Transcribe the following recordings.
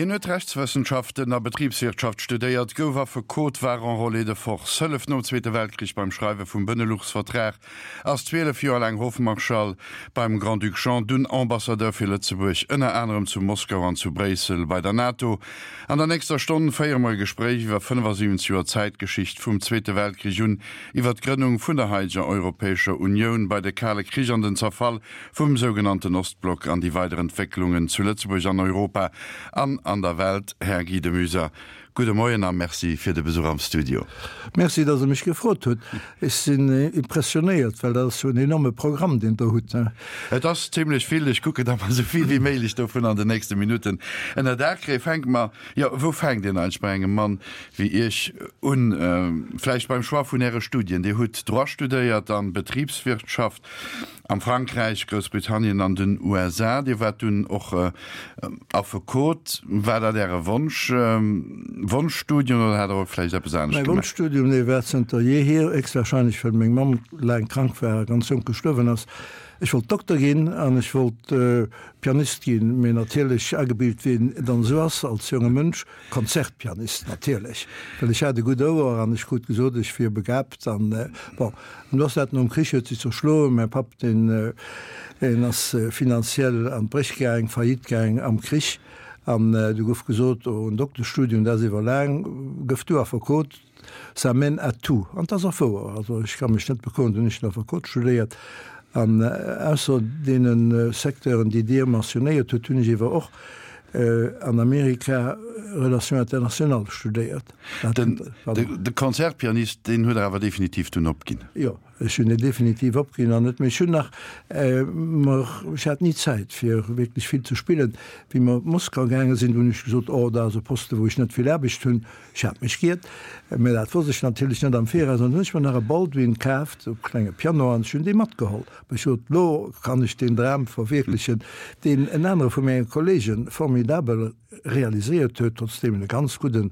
Hien huet Rechtswëssenschaften a Betribswirtschaft studéiert, gouf Affekot, war Enrôlé de force, hëlleft nom Zweete Weltkrich beim Schreiwe vum Beneluxvertrag, ass 12 Joer laang Hofmarschall beim Grand-Duc Jean, dunn Ambassadeur fir Lëtzebuerg, ënner anerem zu Moskau an zu Bréissel bei der NATO. An der nächster Stonn féiere mer e Gespréich iwwer 75 Joer Zäitgeschicht vum Zweete Weltkrich un, iwwer d'Grënnung vun der haideger Europäescher Unioun, bei de Kale Krich an den Zerfall vum sougenannten Ostblock an déi weider Entwécklungen zu Lëtzebuerg, an Europa an an der Welt. Här Guy de Muyser, gudde Moien a Merci fir de Besuch am Studio. Merci, dass Der mech gefrot hutt. Ech sinn impressionéiert, well dat ass jo en enorme Programm, deen Der hutt. Et ass zimlech vill. Ech kucken, datt mer esou vill wéi méiglech dovun an den nächste Minutten ënner Daach kréien. Fänke mer, jo, wou fänkt een eigentlech bei engem Mann wéi Iech un? Vläicht beim Choix vun Äre Studien. Dir hutt Droit studéiert an Betribswirtschaft. Am Frankräich, Groussbritannien an den USA. Dir waart dunn och Affekot. War dat Äre Wonsch, Wonschstudium oder hat Der och vläicht eppes anescht Mäi gemaach? Wonschstudium, dee war zënter jeehier, héchstwahrscheinlech well meng Mamm laang krank war a ganz jonk gestuerwen ass. Ech wollt Dokter ginn an ech wollt Pianist ginn, mee natierlech agebilt wéi een dann esou ass als jonge Mënsch, Konzertpianist natierlech, well ech hat e gutt Ouer an ech krut gesot, ech wier begabt an bon. An du ass dat nom Krich huet sech zerschloen. Mäi Papp deen deen ass finanziell an d'Bréch gaang, Faillite gaang am Krich an du gouf gesot, oh en Dokteschstudium dat ass iwwer laang, gëff du Affekot, ça mène à tout. An 't ass och wouer, also ech ka mech net bekloen, dunn hunn ech den Affekot studéiert an ausser deene Secteuren déi Dir mentionnéiert hutt, hunn ech ewer och an Amerika Relations internationales studéiert. De Concertpianist, deen huet Der awer definitiv dunn opginn? Jo, ech hunn en definitiv opginn an net méi. Ech hunn nach, mer, ech hat ni Zäit fir wierklech vill ze spillen. Wéi mer op Moskau gaange sinn, hunn ech gesot, oh, dat ass e Poste wou ech net vill Aarbecht hunn. Ech hat mech giert, mä dat wosst ech natierlech net am Viraus. An dunn hunn ech mer nach e Baldwin kaaft, e klenge Piano, an ech hunn dee matgeholl. Ech sot, Lo kann ech deen Dram verwierklechen, deen en anere vu menge Kollege formidabel realiséiert huet, trotzdeem en e ganz gudden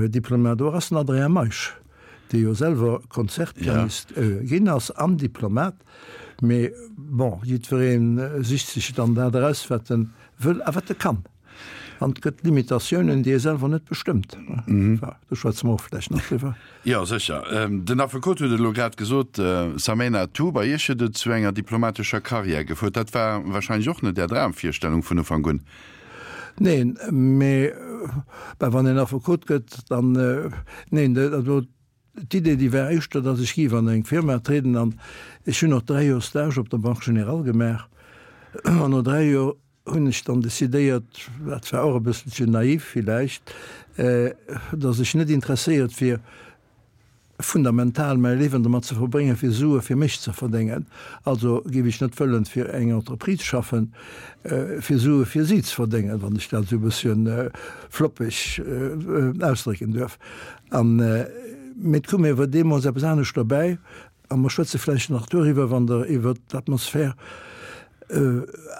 Diplomat och ass, den Adrien Meisch, dee jo selwer Konzertpianist ginn ass an Diplomat. Mee bon, jiddweree sicht sech dann dat eraus, wat e wëll a wat e kann. An et gëtt Limitatiounen, déi ee selwer net bestëmmt. Do schwätze mer och vläicht nach driwwer. Jo, sécher. Den Affekot huet et elo grad gesot, Samena Tou, bei Iech huet et zu enger diplomatescher Karriär gefuert. Dat war wahrscheinlech och net Är Dramvirstellung vun Ufank un? Neen, mee wann een Affekot gëtt, dann, neen, also d'Idee, déi war éischter, datt ech géif an eng Firma trieden. An ech hunn och 3 Joer Stage op der Banque Générale gemaach. An no 3 Joer hunn ech dann decidéiert, dat war och e bësselchen naiv villäicht, datt ech net interesséiert wier, fundamental mäi Liewen domat ze verbréngen, fir Sue fir mech ze verdéngen. Also géif ech net wëllen fir eng Entreprise schaffen, fir Sue fir si ze verdéngen, wann ech dat esou e bësschen floppeg ausdrécken duerf. An, mee et koum awer deemools eppes anescht dobäi, A mer schwätze vläicht nach doriwwer, wann Der iwwert d'Atmosphär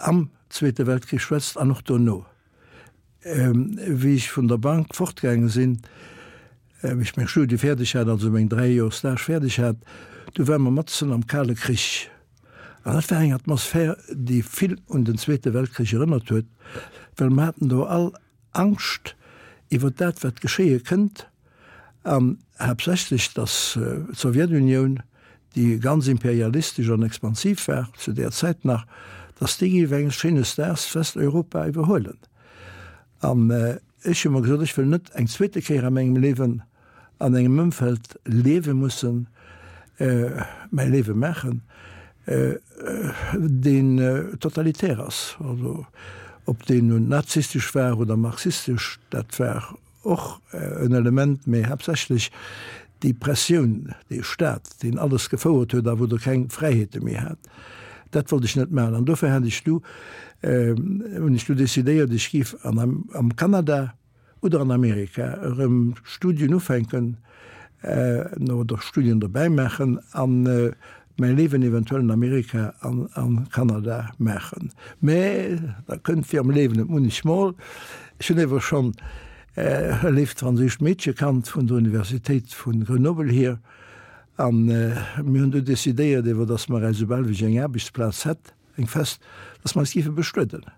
am Zweete Weltkrich schwätzt an och dono. Wéi ech vun der Bank fortgaange sinn, wéi ech meng Studie fäerdeg hat, also meng 3 Joer Stage fäerdeg hat, du ware mer matzen am Kale Krich. An dat war eng Atmosphär, déi vill un den Zweete Weltkrich erënnert huet, well mer haten do all Angscht iwwer dat, wat geschéie kënnt, an haaptsächlech, datt d'Sowjetunioun, déi ganz imperialistesch an expansiv war zu där Zäit nach, datt déi géif enges schéines Daags Westeuropa iwwerhuelen. An ech hu mer gesot, ech wëll net eng zweete Kéier a mengem Liewen an engem Ëmfeld liewe mussen, mäi Liewe maachen, deen totalitär ass. Also ob deen nun nazistesch war oder marxistesch, dat war och en Element, mee haaptsächlech déi Pressioun, dee Staat, deen alles gefouert huet a wou Der keng Fräiheete méi hat, dat wollt ech net maachen. An dofir hat ech du, hunn ech du decidéiert, ech géif an am Kanada, oder an Amerika erëm Studien ufänken oder Studien dobäi maachen a mäi Liewen eventuell an Amerika an a Kanada maachen. Mä da kënnt wéi am Liewen et munnechmol, ech hunn ewer schonn e léift franséischt Meedche kannt vun der Universitéit vu Grenoble hier a mir hunn du decidéiert ewer, datt mer eis, esoubal wéi ech eng Aarbechtsplaz hätt, eng fest, datt mer eis géife bestueden.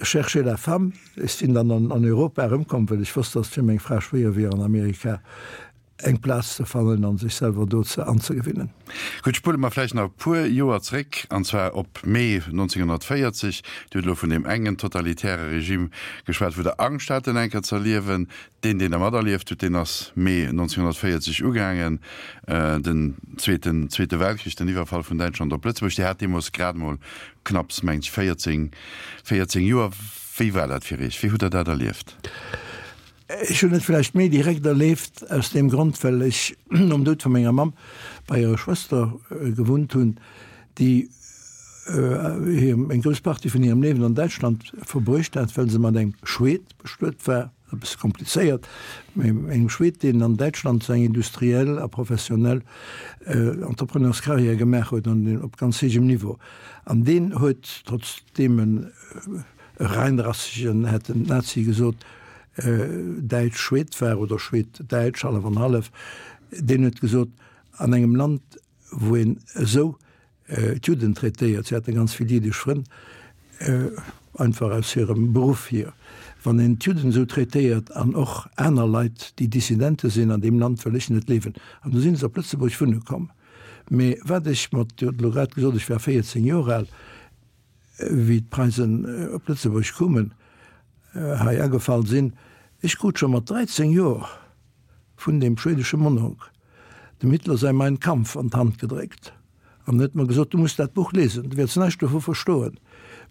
Cherchez la femme. Ech sinn dann an Europa erëmkomm, well ech wosst, dass et fir meng Fra schwéier wier an Amerika eng Plaz ze fannen an sech selwer do ze anzegewinnen. Gutt, spulle mer vläicht nach e puer Joer zréck, an zwar op Mee 1940. Dir hutt elo vun deem engen totalitäre Regime geschwat, wou Der Angscht hat, en eng Kéier ze erliewen. Deen, deen Der materlieft hutt, deen ass Mee 1940 ugaangen, den zweeten Zweete Weltkrich, den Iwwerfall vun Däitschland op Lëtzebuerg. Dir hat deemools grad emol knapps, mengt ech, 14, 14 Joer. Wéi war dat fir Iech? Wéi hutt Der dat erlieft? Ech hunn et vläicht méi direkt erlieft aus deem Grond, well ech nom Doud vu menger Mamm bei hirer Schwëster gewunnt hunn, déi hir eng grouss Partie vun hirem Liewen an Däitschland verbruecht hat, well se mat engem Schweed bestuet war, e bësse komplizéiert, mee engem Schweed, deen an Däitschland seng industriell a professionell Entrepreneurscarrière gemaach huet an op ganz héijem Niveau. An deen huet, trotzdeem en e reinrassegen, hätten d'Nazie gesot, Däitsch-Schweed war, oder Schweed-Däitsch, hallef an hallef, deen huet gesot, an engem Land, wou een esou d'Judden traitéiert, si haten ganz vill jiddesch Frënn, einfach aus hirem Beruff hier, wann een d'Judden esou traitéiert an och aner Leit, déi Dissidente sinn, an deem Land wëll ech net liewen. An du sinn se op Lëtzebuerg wunne komm. Mee wat ech mat, Dir hutt elo grad gesot, ech war 14 Joer al, wéi d'Preisen op Lëtzebuerg koumen, hei agefall sinn, ech krut scho mat 13 Joer vun deem schwedesche Mononk dem Hitler säi Mein Kampf an d'Hand gedréckt an huet mer gesot, du muss dat Buch lesen, du wäerts näischt dovu verstoen,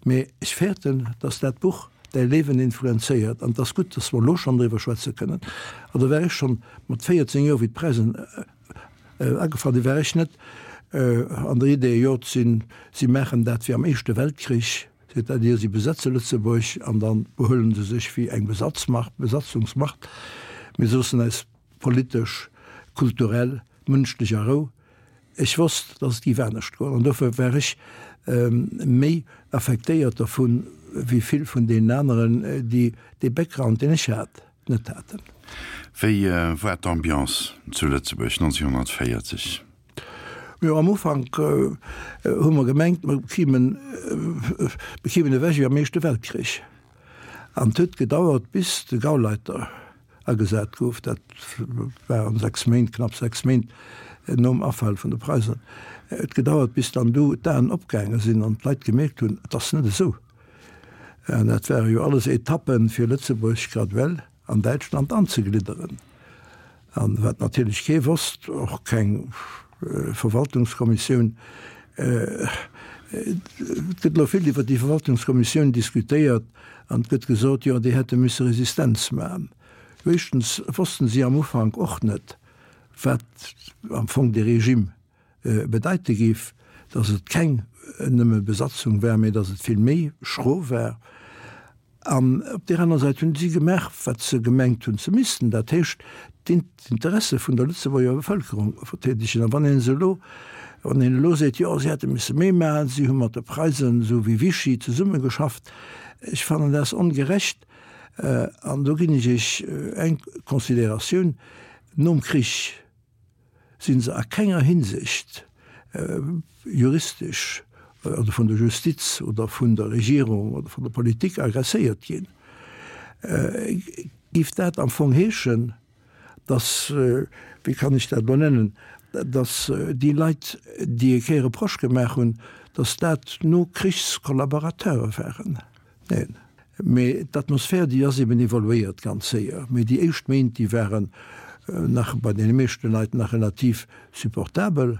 mee ech fäerten, dass dat Buch däi Liewen influenzéiert an et ass gutt, dass mer elo schonn driwwer schwätze kënnen. An do war ech schonn mat 14 Joer, wéi d'Preisen Agefall sinn, war ech net an der Idee, jo, si maachen dat wéi am Éischte Weltkrich, c'est-à-dire si besetze Lëtzebuerg an da behuelen se sech wéi eng Besatzmacht, Besatzungsmacht, mir loossen eis politesch, kulturell, mënschlech a Rou. Ech wosst, datt et géif anescht goen an dofir war ech méi affektéiert dervun, wéi vill vun deenen aneren, déi dee Background, deen ech hat. net haten. Wéi war d'Ambiance zu Lëtzebuerg 1940? Jo, am Ufank hu mer gemengt, mer kimen, mer kimen ewech wéi am Éischte Weltkrich. An et huet gedauert, bis de Gauleiter agesat gouf, dat war an 6 Méint, knapp 6 Méint nom Afal vun de Preisen, et huet gedauert, bis dann du d'Aen opgaange sinn an d'Leit gemierkt hunn, et ass net esou. An dat ware jo alles Etappen, fir Lëtzebuerg graduell an Däitschland anzeglidderen. An wat natierlech kee wosst, och keng Verwaltungskommissioun, et gëtt elo vill iwwer déi Verwaltungskommissioun diskutéiert an et gëtt gesot, jo déi hätte misse Resistenz maachen. Éischtens wossten si am Ufank och net, wat am Fong dee Regime bedeite géif, datt et keng nëmme Besatzung war, mä datt et vill méi schro war. An op där aner Säit hunn si gemaach, wat se gemengt hunn ze missten, dat heescht d'Interesse vun der Lëtzebuerger Bevëlkerung verteedegen. A wann een se elo, wann een elo seet, jo si hätte misse méi maachen, si hu mat de Preisen esou wéi Vichy zesummegeschafft, ech fannen dat ongerecht. An do ginn ech Iech eng Consideratioun, Nom Krich si se a kenger Hinsicht juristesch oder vun der Justiz oder vun der Regierung oder vun der Politik agresséiert ginn, géif dat am Fong heeschen, dass, wéi kann ech dat elo nennen, dass déi Leit, déi e Kéier Reproche gemaach hunn, dass dat Nokrichskollaborateure waren. Neen, mee d'Atmosphär, déi ass eben evoluéiert ganz séier. Mee déi éischt Méint, déi waren nach bei deene meeschte Leit nach relativ supportabel.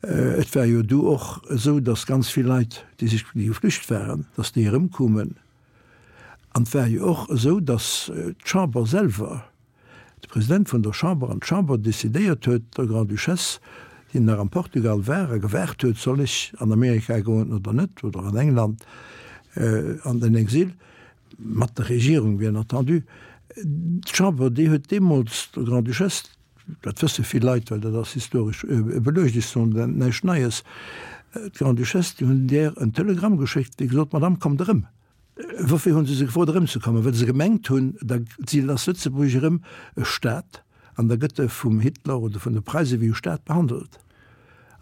Et war jo du och esou, datt ganz vill Leit, déi sech, déi geflücht waren, datt déi erëmkoumen. An et war jo och esou, datt d'Chamber selwer, de President vun der Chamber an d'Chamber decidéiert huet, der Grande-Duchesse, déi nach am Portugal war a gewaart huet, soll ech an Amerika goen oder net, oder an England an den Exil, mat der Regierung bien entendu, d'Chamber, déi huet deemools der Grande-Duchesse, dat wësse vill Leit, well dat ass historesch beluecht, ech soen näischt Neies, d'Grande-Duchesse, déi hunn där en Telegramm geschéckt, déi gesot, Madame, kommt erëm. Woufir hunn se se gefrot erëmzekommen? Well se gemengt hunn, da si ass Lëtzebuerg erëm e Staat an da gëtt e vum Hitler oder vun de Preise wéi e Staat behandelt.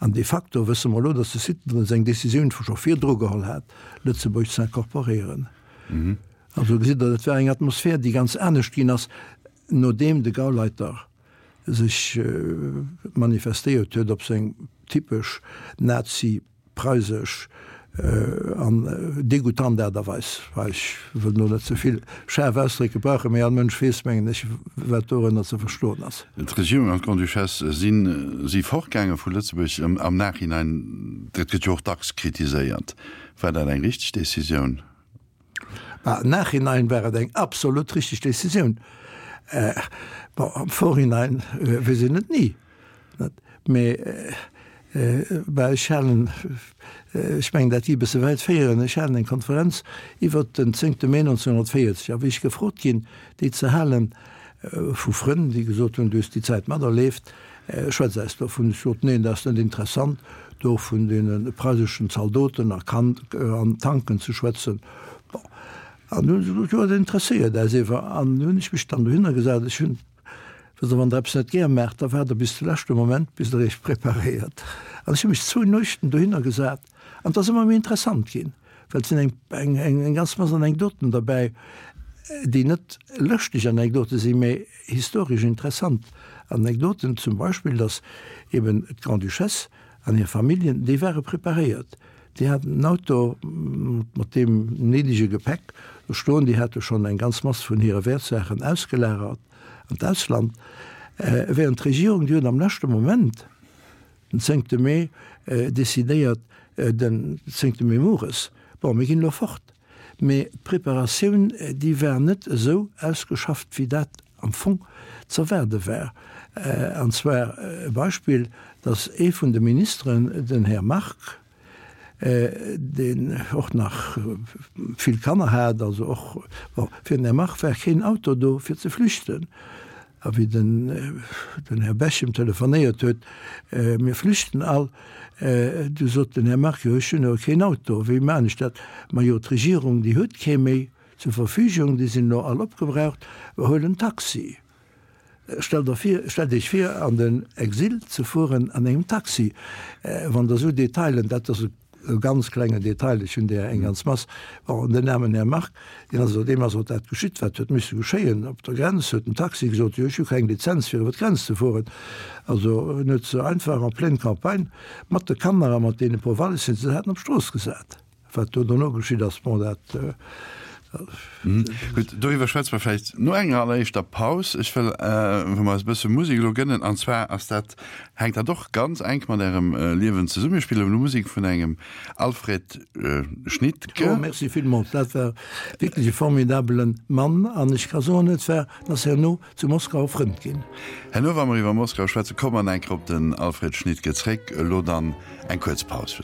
An de facto wësse mer elo, datt de Hitler seng Decisioun scho virdru geholl hat, Lëtzebuerg ze incorporéieren. Also gesitt Der, dat war eng Atmosphär, déi ganz anescht ginn ass, nodeem de Gauleiter sech manifestéiert huet op seng typesch nazi-preisesch an degoutant Aart a Weis. Ech wëll elo net ze vill schaarf Ausdréck gebrauchen, mee all Mënsch weess, mengen ech, wat dorënner ze verstoen ass. D'Regierung an d'Grande-Duchesse si si fortgaange vu Lëtzebuerg. Am Nachhinein, dat gëtt jo och dacks kritiséiert, war dat eng richteg Decisioun? Bah, am Nachhinein war et eng absolut richteg Decisioun. Bon, am Vorhinein weess een et ni, net? Mee, bah, ech halen, ech mengen, dat gi e bësse wäit féieren, ech halen eng Konferenz iwwert den zéngte Mee 1940, a wéi ech gefrot ginn, déi ze halen, vu Frënn, déi gesot hunn, du hues déi Zäit materleeft, Schwätz eis dovun. Ech sot, Neen, dat ass net interessant, do vun deene preiseschen Zaldoten a an Tanken ze schwätzen. Bon, an du hunn se gesot, Jo, dat interesséiert äis ewer. An du hunn ech mech dann dohinner gesat. Ech hunn, wësst Der, wann Der eppes net gär maacht, da waart Der bis de leschte Moment, bis Der Iech preparéiert. An ech hu mech zwou Nuechten dohinner gesat an et ass ëmmer méi interessant ginn, well et sinn eng, eng, eng ganz Mass Anekdoten derbäi, déi net lëschteg Anekdote sinn, mä Historesch interessant Anekdoten, zum Beispill, datt eben d'Grande-Duchesse an hir Familljen, déi ware preparéiert, déi haten en Auto mat deem néidege Gepäck do stoen, déi hate schonn eng ganz Mass vun hire Wäertsaachen ausgelagert an d'Ausland, während d'Regierung, déi huet am leschte Moment, den zéngte Mee, decidéiert, den zéngte Mee mueres, bon, mir ginn elo fort. Mee d'Preparatioun, déi war net esou ausgeschafft, wéi dat am Fong z'erwaarde war. An zwar e Beispill, datt ee vun de Ministeren, den Här Margue, deen och nach vill Kanner hat, also och, bon, fir den Här Margue war keen Auto do fir ze flüchten. A wéi den den Här Bechem telefonéiert huet, Mir flüchten all, du sot den Här Margue, Jo, ech hunn awer keen Auto, wéi maan ech dat? Majo, d'Regierung, déi huet kee méi zur Verfügung, déi sinn elo all opgebraucht, huel en Taxi. Stellt der vir, stellt Iech vir, an den Exil ze fueren an engem Taxi, wann Der esou Detailen, dat ass e E ganz klengen Detail, ech hunn där eng ganz Mass, bon, den aarmen Här Margue, deen ass, deem ass och dat geschitt, wat huet misse geschéien. Op der Grenz huet den Taxi gesot, jo, ech hu keng Lizenz, fir iwwer d'Grenz ze fueren. Also en huet se einfach en pleine campagne mat de Kanner a mat deene puer Wallissen, déi se haten, op d'Strooss gesat. Wat do dono geschitt ass, bon, dat. Gutt, doriwwer schwätze mer vläicht no enger alleréischter Paus. Ech wëll, wou mer eis e bësse Musek elo gënnen, an zwar ass dat, hänkt dat och ganz enk mat Ärem Liewen zesummen. Mir spillen elo Musek vun engem Alfred Schnittke. Oh, merci villmools. Dat war wierklech e formidabele Mann an ech ka soen, et war, en ass herno zu Moskau e Frënd ginn. Herno, wa mer iwwer Moskau schwätzen, komme mer nach eng Kéier op den Alfred Schnittke zréck. Elo dann eng kuerz Paus.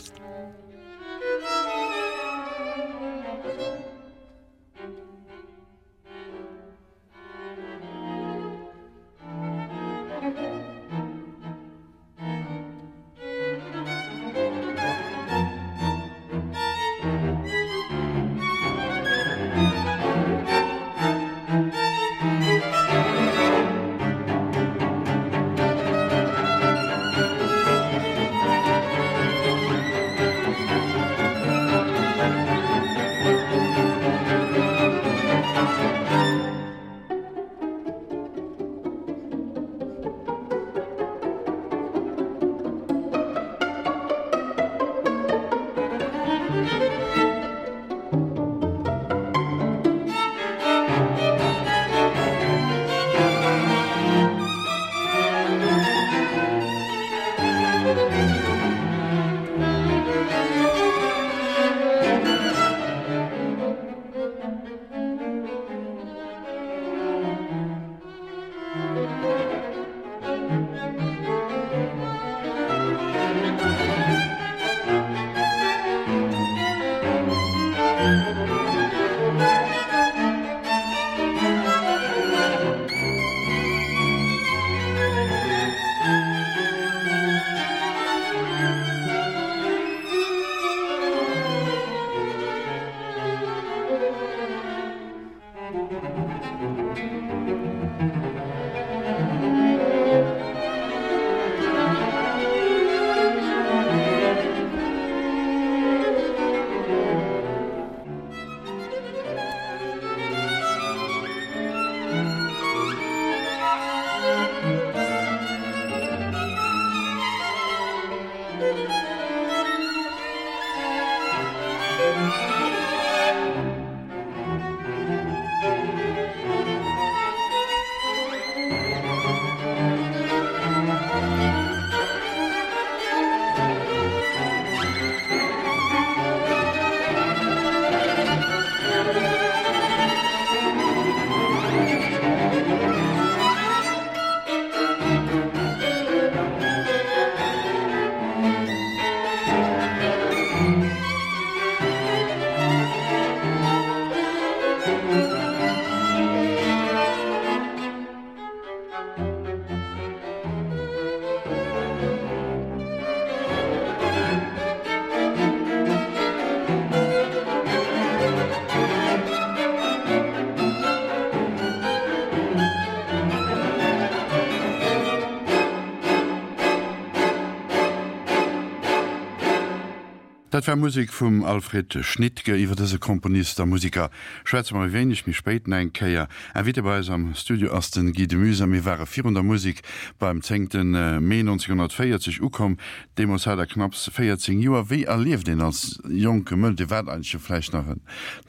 Dat war Musek vum Alfred Schnittke. Iwwer dëse Komponist a Museker schwätze mer e wéineg méi spéit nach eng Kéier. Invité bei eis am Studio ass de Guy de Muysen a mir ware virun der Musek beim zéngte Mee 1940 ukomm. Deemools hat Der knapps 14 Joer. Wéi erlieft een als jonke Mënsch, Dir waart eigentlech jo vläicht nach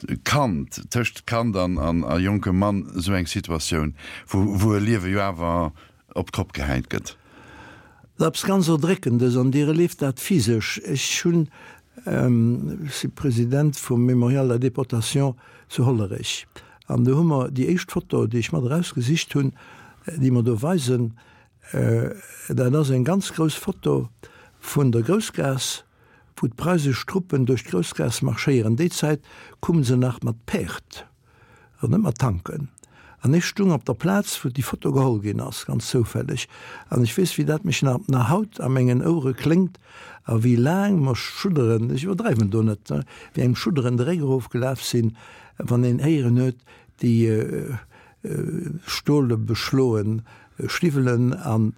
e Kand, tëscht Kand an a jonkem Mann, esou eng Situatioun, wou wou e Liewe jo awer op d'Kopp gehäit gëtt? Dat ass eppes ganz Erdréckendes an Dir erlieft dat physesch. Ech hunn, ech si President vum Mémorial de la Déportation zu Hollerech an do hu mer déi éischt Foto, déi ech mat erausgesicht hunn, déi mer do weisen, Dat ass eng ganz grouss Foto vun der Groussgaass, wou d'preisesch Truppen duerch d'Groussgaass marschéieren. Déi Zäit kumme se nach mat Päerd an net mat Tanken. An ech stung op der Plaz, wou déi Foto geholl ginn ass, ganz zoufälleg. An ech weess, wéi dat mech nach haut a mengen Ouere kléngt a wéi laang mer Schudderen, ech iwwerdreiwen do net, wéi engem Schudderen de Réck erofgelaf sinn, wann een héieren huet, déi Stole beschloen Stiwwelen an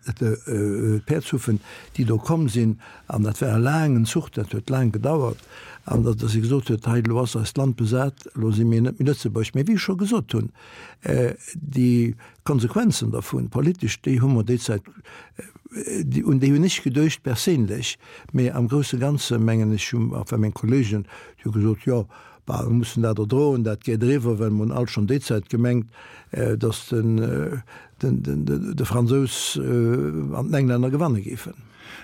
Päerdshuffen, déi do komm sinn. An dat war e laangen Zuch, dat huet laang gedauert. An datt e gesot huet, hei elo ass eist Land besat, elo si mir net méi Lëtzebuerg. Mee wéi ech scho gesot hunn, déi Konsequenzen dervun, politesch, déi hu mer déi Zäit, un déi hunn ech geduecht perséinlech, mee am grousse Ganze mengen ech, hu enfin meng Kollegen, déi hu gesot, jo, Bah, mir mussen dat erdroen, dat geet eriwwer, well mir hunn alt schonn déi Zäit gemengt, datt de Fransous an den Englänner gewanne géifen.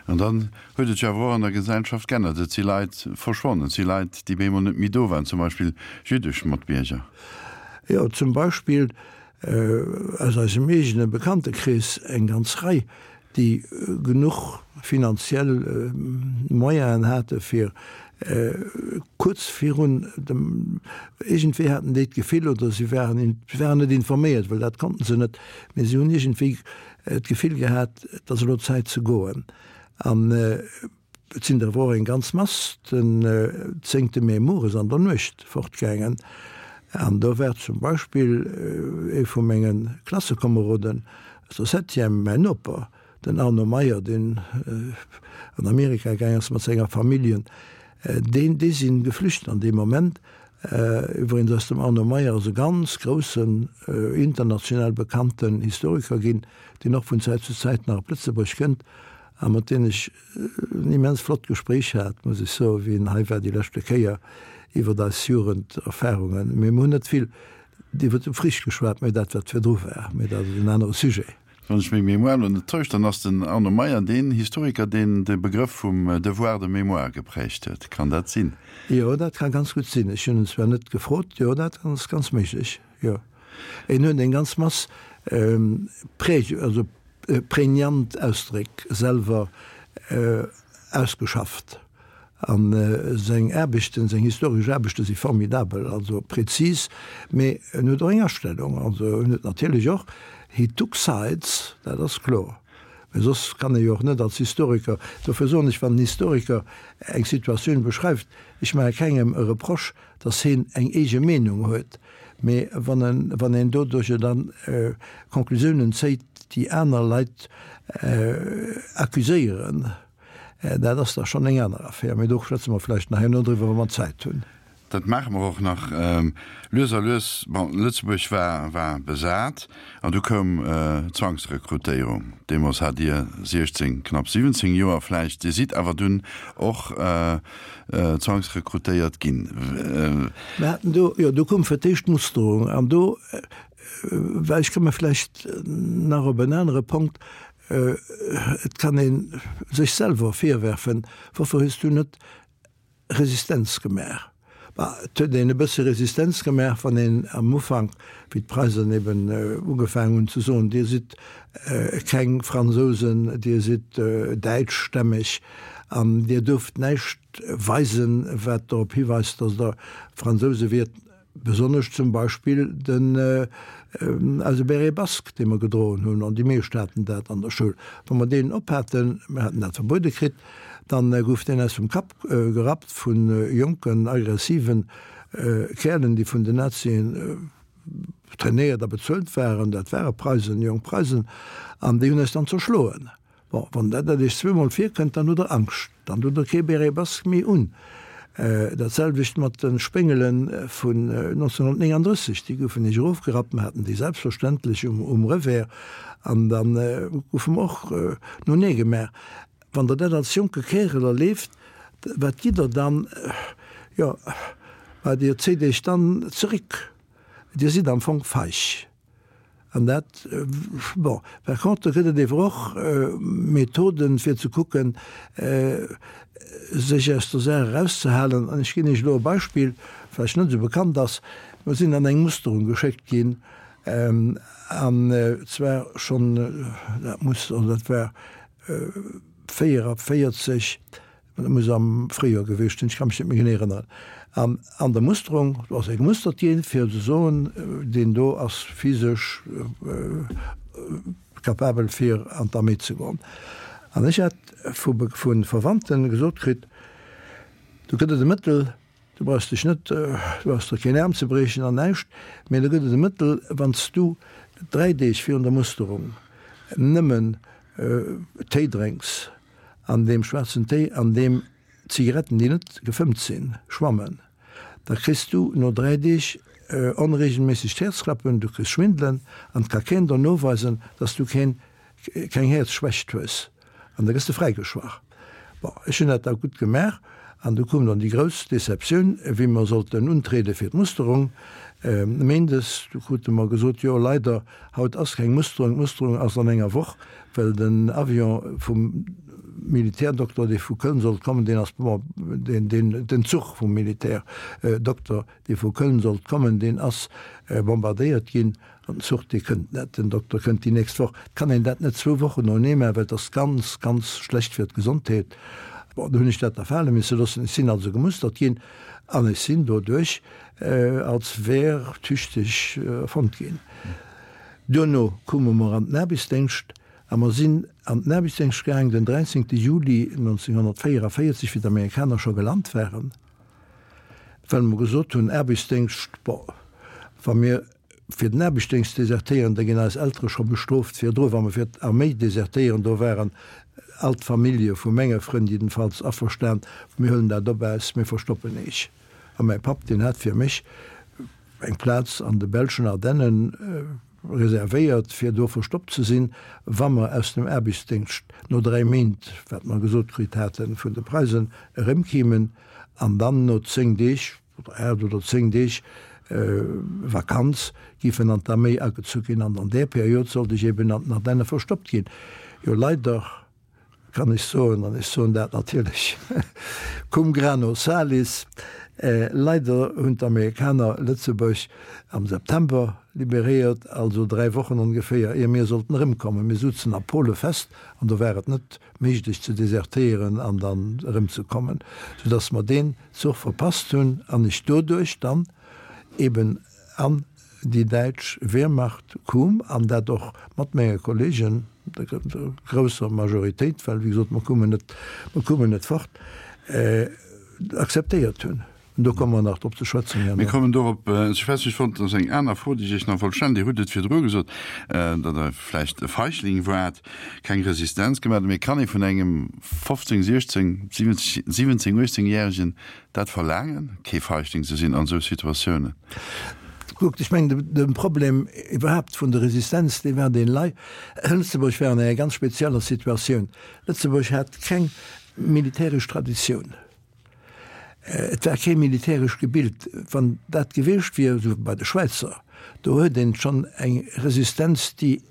An dann huet et sech awer och an der Gesellschaft g'ännert. Et si Leit verschwonnen, et si Leit, déi bemol net méi do waren, zum Beispill jüddesch Matbierger. Jo, zum Beispill aus eisem eegene Bekanntekrees eng ganz Rei, déi genuch finanziell Moyenen hate fir kuerz virun dem, iergendwéi haten déi d'Gefill, oder si waren, si waren net informéiert, well dat konnten se net, mee si hunn iergendwéi d'Gefill gehat, et ass elo Zäit ze goen. An Et sinn der awer och eng ganz Mass den zéngte Mee mueres an der Nuecht fortgaangen. An do war zum Beispill ee vu menge Klassekomeroden aus der Septième, mäin Noper, den Arno Meyer, deen an Amerika gaang ass mat senger Familljen. Deen, déi si geflücht an deem Moment. Iwwregens ass dem Arno Meyer ass e ganz groussen, international bekannten Historiker ginn, deen och vun Zäit zu Zäit nach op Lëtzebuerg kënnt a mat deem ech en immens flott Gespréich hat, muss ech soen, wéi en hei war déi leschte Kéier, iwwert eis Jugenderfahrungen. Mee mir hunn net vill iwwert de Frich geschwat, mee dat wat virdru war. Mee dat ass en anere Sujet. Wann ech meng Mémoire elo net täuscht, dann ass den Arno Meyer deen Historiker, deen de Begrëff vum Devoir de mémoire geprägt huet. Kann dat sinn? Jo, dat ka ganz gutt sinn. Ech hunn en zwar net gefrot. Jo, dat ass ganz méiglech, jo. En huet eng ganz Mass präg, also prägnant Ausdréck selwer ausgeschafft. A seng Aarbechten, seng historesch Aarbechte si formidabel, also präzis, mee en huet och eng Astellung. Also en huet natierlech och, he took sides, dat ass kloer. Mee soss kann ee jo och net als Historiker, dofir soen ech, wann en Historiker eng Situatioun beschreift, ech maache kengem e Reproche, datt heen eng eege Meenung huet, Mee wann en, wann een doduercher dann Conclusiounen zéit, déi aner Leit accuséieren, dat ass da schonn eng aner Affär. Mee do schwätze mer vläicht nach herno driwwer, wa mer Zäit hunn. Dat maache mer och nach lues a lues. Bon, Lëtzebuerg war, war besat an du koum d'Zwangsrekrutéierung. Deemools hat Dir 16, knapp 17 Joer vläicht. Dir sidd awer dunn och zwangsrekrutéiert ginn. Mir haten do, jo, do koum fir d'éischt d'Musterung an do, well ech komme vläicht nach op en anere Punkt, et kann ee sech selwer virwerfen, Woufir hues du net Resistenz gemaach. Bah, et huet een e bësse Resistenz gemaach, wann een am Ufank, wéi d'Preisen eben ugefaangen hunn ze soen, Dir sidd keng Fransousen, Dir sidd däitschstämmeg an Dir duerft näischt weisen, wat dorop hiweist, datt Der Fransouse wiert. Besonnesch zum Beispill den eise Béret basque, dee mer gedroen hunn, an déi meescht haten dat an der Schoul. Wa mer deen ophaten, mer haten dat verbuede kritt, dann gouf deen eis vum Kapp gerappt vu jonken, aggressiven Käerlen, déi vun den Nazien trainéiert a bezuelt waren, dat ware Preisen, jonk Preisen, an déi hunn eis dann zerschloen. Bon, wann dat dat Iech zweemol virkënnt, dann hutt Der Angscht, dann hutt Der kee Béret basque méi un. Dat selwecht mat de Spéngele vun 1939, déi goufen Iech erofgerappt, mer haten déi selbstverständlech um Revers, an da goufe mer och no nee gemaach. Wann Der dat als jonke Kärel erleeft, wat gitt Der dann? Jo, bah, Dir zéit Iech dann zeréck, Dir sidd am Fong feig. An dat, bon, par contre gëtt et ewer och Methoden, fir ze kucken, sech aus der Saach erauszehalen. An ech ginn Iech elo e Beispill, vläicht net esou bekannt ass. Mer sinn an eng Musterung geschéckt ginn, an zwar schonn, dat muss, also dat war 44, Dat muss am Fréijoer gewiescht sinn, ech ka mech net méi genee erënneren. An an der Musterung, do ass ee gemustert ginn, fir ze soen, deen do ass physesch capabel fir an d'Arméi ze goen. An ech hat vu vu Verwandte gesot kritt, do gëtt et e Mëttel, du brauchs dech net, du brauchs der keen Aarm ze briechen an näischt, mee do gëtt et e Mëttel, wann s du 3 Deeg virun der Musterung nëmmen Téi drénks, An deem schwaarzen Téi, an deem Zigaretten, déi net gefëmmt sinn, schwammen, da kriss du no 3 Deeg onregelméissegt Häerzklappen, du kriss Schwindelen an et ka keen der noweisen, dass du keen, keng Häerzschwächt hues an da gëss de fräigeschwach. Bon, ech hunn dat da gutt gemaach an du koum dann déi grouss Deceptioun, wéi mer sollten untriede fir d'Musterung méindes, du krute mer gesot, jo leider, haut ass keng Musterung, d'Musterung ass an enger Woch. Well den Avion vum Militärdokter, dee vu Köln sollt kommen, deen ass, bon, deen, deen, den Zuch vum Militärdokter, dee vu Köln sollt kommen, deen ass bombardéiert ginn an den Zuch, dee kënnt net, den Dokter kënnt déi nächst Woch. Et kann een dat net zwou Wochen noenee maachen, well et ass ganz, ganz schlecht fir d'Gesondheet. Bon, do hunn ech dat da fale misse loossen. Ech sinn also gemustert ginn an ech sinn doduerch als wehrtüchtig erfonnt ginn. Duerno koume mer an den Aarbechtsdéngscht a mer sinn an den Aarbechtsdéngscht gaang den 13. Juli 1944, wéi d'Amerikaner scho gelant waren, well mer gesot hunn, Aarbechtsdéngscht, bon, wa mir fir den Aarbechtsdéngscht desertéieren, da ginn eis Eltere scho bestrooft virdru. Wa mer fir d'Arméi desertéieren, do waren all d'Famillje vu menge Frënn jiddenfalls averstan, mir huelen dat op äis, mir verstoppen eech. A mäi Papp, deen hat fir mech eng Plaz an de belschen Ardennen reservéiert, fir do verstoppt ze sinn, wa mer aus dem Aarbechtsdéngscht no 3 Méint, wat mer gesot kritt haten, vun de Preisen erëmkimen an dann no 10 Deeg oder 8 oder 10 Deeg Vakanz giffen an d'Arméi agezu ginn. An an där Period sollt ech eben an den Ardenne verstoppt ginn. Jo, leider kann ech soen, an ech soen dat natierlech cum grano salis, leider hunn d'Amerikaner Lëtzebuerg am September liberéiert, also 3 Wochen ongeféier ier mir sollten erëmkommen. Mir sutzen a Pole fest an do war et net méiglech ze desertéieren an dann erëmzekommen, soudass mer deen Zuch verpasst hunn an ech doduerch dann eben an déi däitsch Wehrmacht koum, an dat och mat menge Kollegen, der grousser Majoritéit, well wéi gesot, mer koumen net, mer koumen net fort, akzeptéiert hunn. Do komme mer nach drop ze schwätzen herno. Mir kommen dorop ze schwätzen. Ech wollt, dat ass eng aner Fro, déi ech Iech nach wollt stellen. Dir hutt et virdru gesot, datt Der vläicht e Feigling waart, keng Resistenz gemaach hutt. Mee kann ee vun engem 15, 16, 17, 18 Järegen dat verlaangen, kee Feigling ze sinn an esou Situatiounen? Kuckt, ech mengen, de Problem iwwerhaapt vun der Resistenz, dee war deen lei, Lëtzebuerg war an enger ganz spezieller Situatioun. Lëtzebuerg hat keng militäresch Traditioun. Et war kee militäresch gebilt. Wann dat gewiescht wier, esou wéi bei de Schwäizer, do huet een schonn eng Resistenz, déi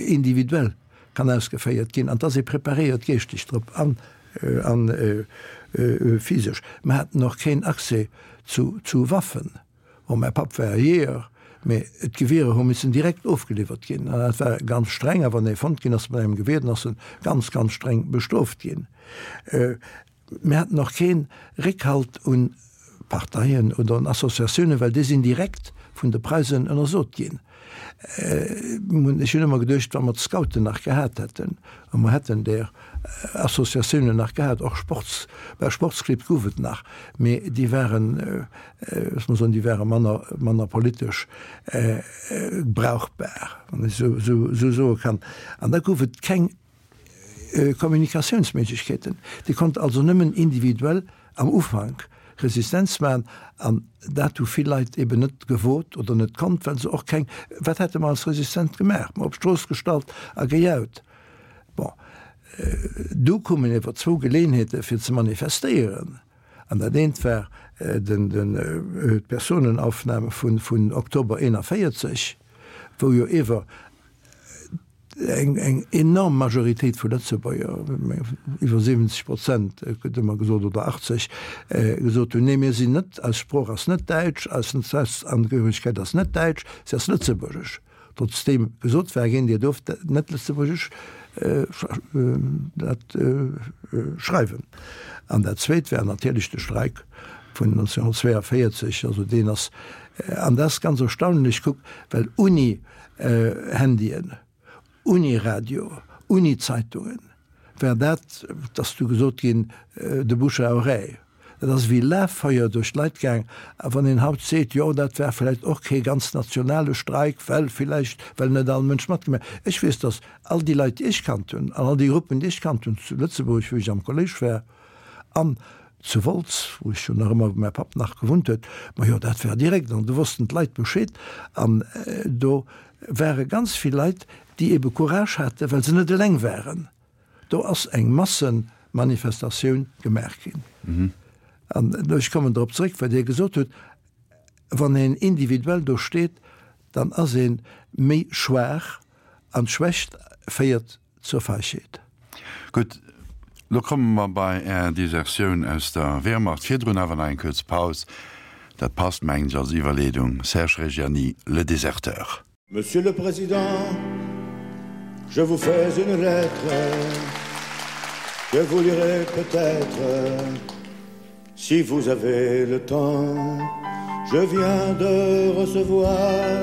individuell kann ausgeféiert ginn, an et ass ee preparéiert geeschteg drop an physesch. Mer haten och keen Accès zu Waffen. Bon, mäi Papp war Jeeër, mee d'Gewierer hu missen direkt ofgeliwwert ginn. An dat war ganz streng. A wann ee fonnt ginn ass mat engem Gewier, dann ass en ganz, ganz streng bestrooft ginn. Mir haten och kee Réckhalt un Parteien oder un Associatiounen, well déi sinn direkt vun de Preisen ënnersot ginn. Ech hunn ëmmer geduecht, wa mer d'Scouten nach gehat hätten, a mer hätten där Associatiounen nach gehat, och Sports, bah, Sportsclibb gouf et nach, mee déi waren, loosse mer soen, déi ware manner, manner politesch brauchbar, wann ech esou soe kann. An da gouf et keng Kommunikatiounsméiglechkeeten. Dir konnt also nëmmen individuell am Ufank Resistenz maachen an dat hu vill Leit eben net gewot oder net konnt, well se och keng, wat hätte mer als Resistent gemaach? Mer op d'Strooss gestallt a gejaut. Bon, du koumen ewer zwou Geleeënheete fir ze manifestéieren an dat eent war den, den, d'Personenaufnahme vun, vun Oktober 41, wou jo ewer Eng enorm Majoritéit vu Lëtzebuerger, iwwer 70 Prozent gëtt ëmmer gesot, oder 80, gesot hunn, nee mir sinn net, eis Sprooch ass net däitsch, eis Staatsangehöregkeet ass net däitsch, se ass lëtzebuergesch. Trotzdeem gesot war ginn, Dir duerft net lëtzebuergesch dat schreiwen. An dat Zweet war natierlech de Streik vun 1942, also deen ass, an dat ass ganz erstaunlech, kuck, well uni Handyen, uni Radio, uni Zeitungen, war dat, et ass du gesot ginn, de Bouche à oreille. Dat ass ewéi Laffeuer duerch d'Leit gaang. A wann een haut seet, jo dat war vläicht och kee ganz nationale Streik, well villäicht, well net all Mënsch matgemaach huet. Ech weess, datt all déi Leit, déi ech kannt hunn, an all déi Gruppen, déi ech kannt hunn zu Lëtzebuerg, wou ech am Kolléisch war, an zu Wolz, wou ech jo nach ëmmer, wou mäi Papp nach gewunnt huet, majo dat war direkt an do wossten d'Leit Bescheed an do ware ganz vill Leit, déi ebe Courage haten, well se net eleng waren. Do ass eng Massemanifestatioun gemaach ginn. An ech kommen drop zréck, wat Dir gesot hutt, wann een individuell do steet, dann ass ee méi schwaach an d'Schwächt féiert Zur Feigheet. Gutt, lo komme mer bei Är Desertioun aus der Wehrmacht. Virdrun awer nach eng kuerz Paus. Dat passt, mengen ech, als Iwwerleedung. Serge Reggiani, Le Déserteur. Monsieur le Président, je vous fais une lettre que vous lirez peut-être si vous avez le temps. Je viens de recevoir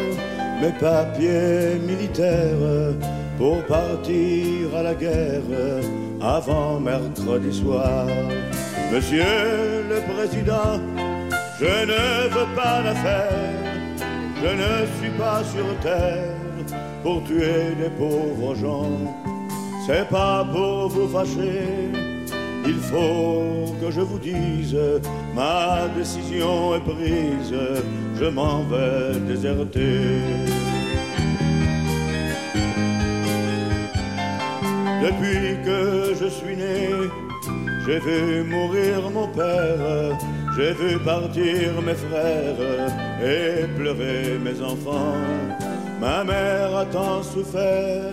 mes papiers militaires pour partir à la guerre avant mercredi soir. Monsieur le Président, je ne veux pas l'affaire, je ne suis pas sur terre pour tuer des pauvres gens. C'est pas pour vous fâcher, il faut que je vous dise, ma décision est prise, je m'en vais déserter. Depuis que je suis né, j'ai vu mourir mon père, j'ai vu partir mes frères et pleurer mes enfants. Ma mère a tant souffert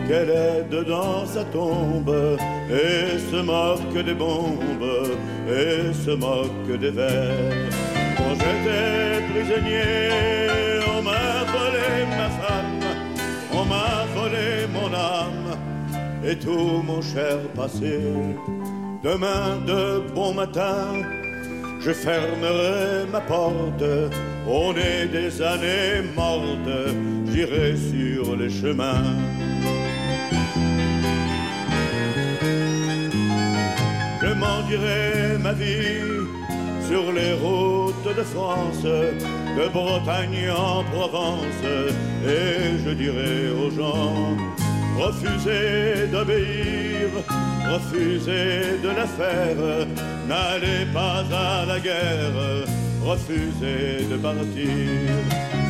qu'elle est dedans sa tombe et se moque des bombes et se moque des vers. Quand j'étais prisonnier, on m'a volé ma femme, on m'a volé mon âme et tout mon cher passé. Demain de bon matin, je fermerai ma porte, on est des années mortes, j'irai sur les chemins. Je m'en. J'envierai ma vie sur les routes de France, de Bretagne en Provence, et je dirai aux gens refusez d'obéir, refusez de la faire, n'allez pas à la guerre, refusez de partir.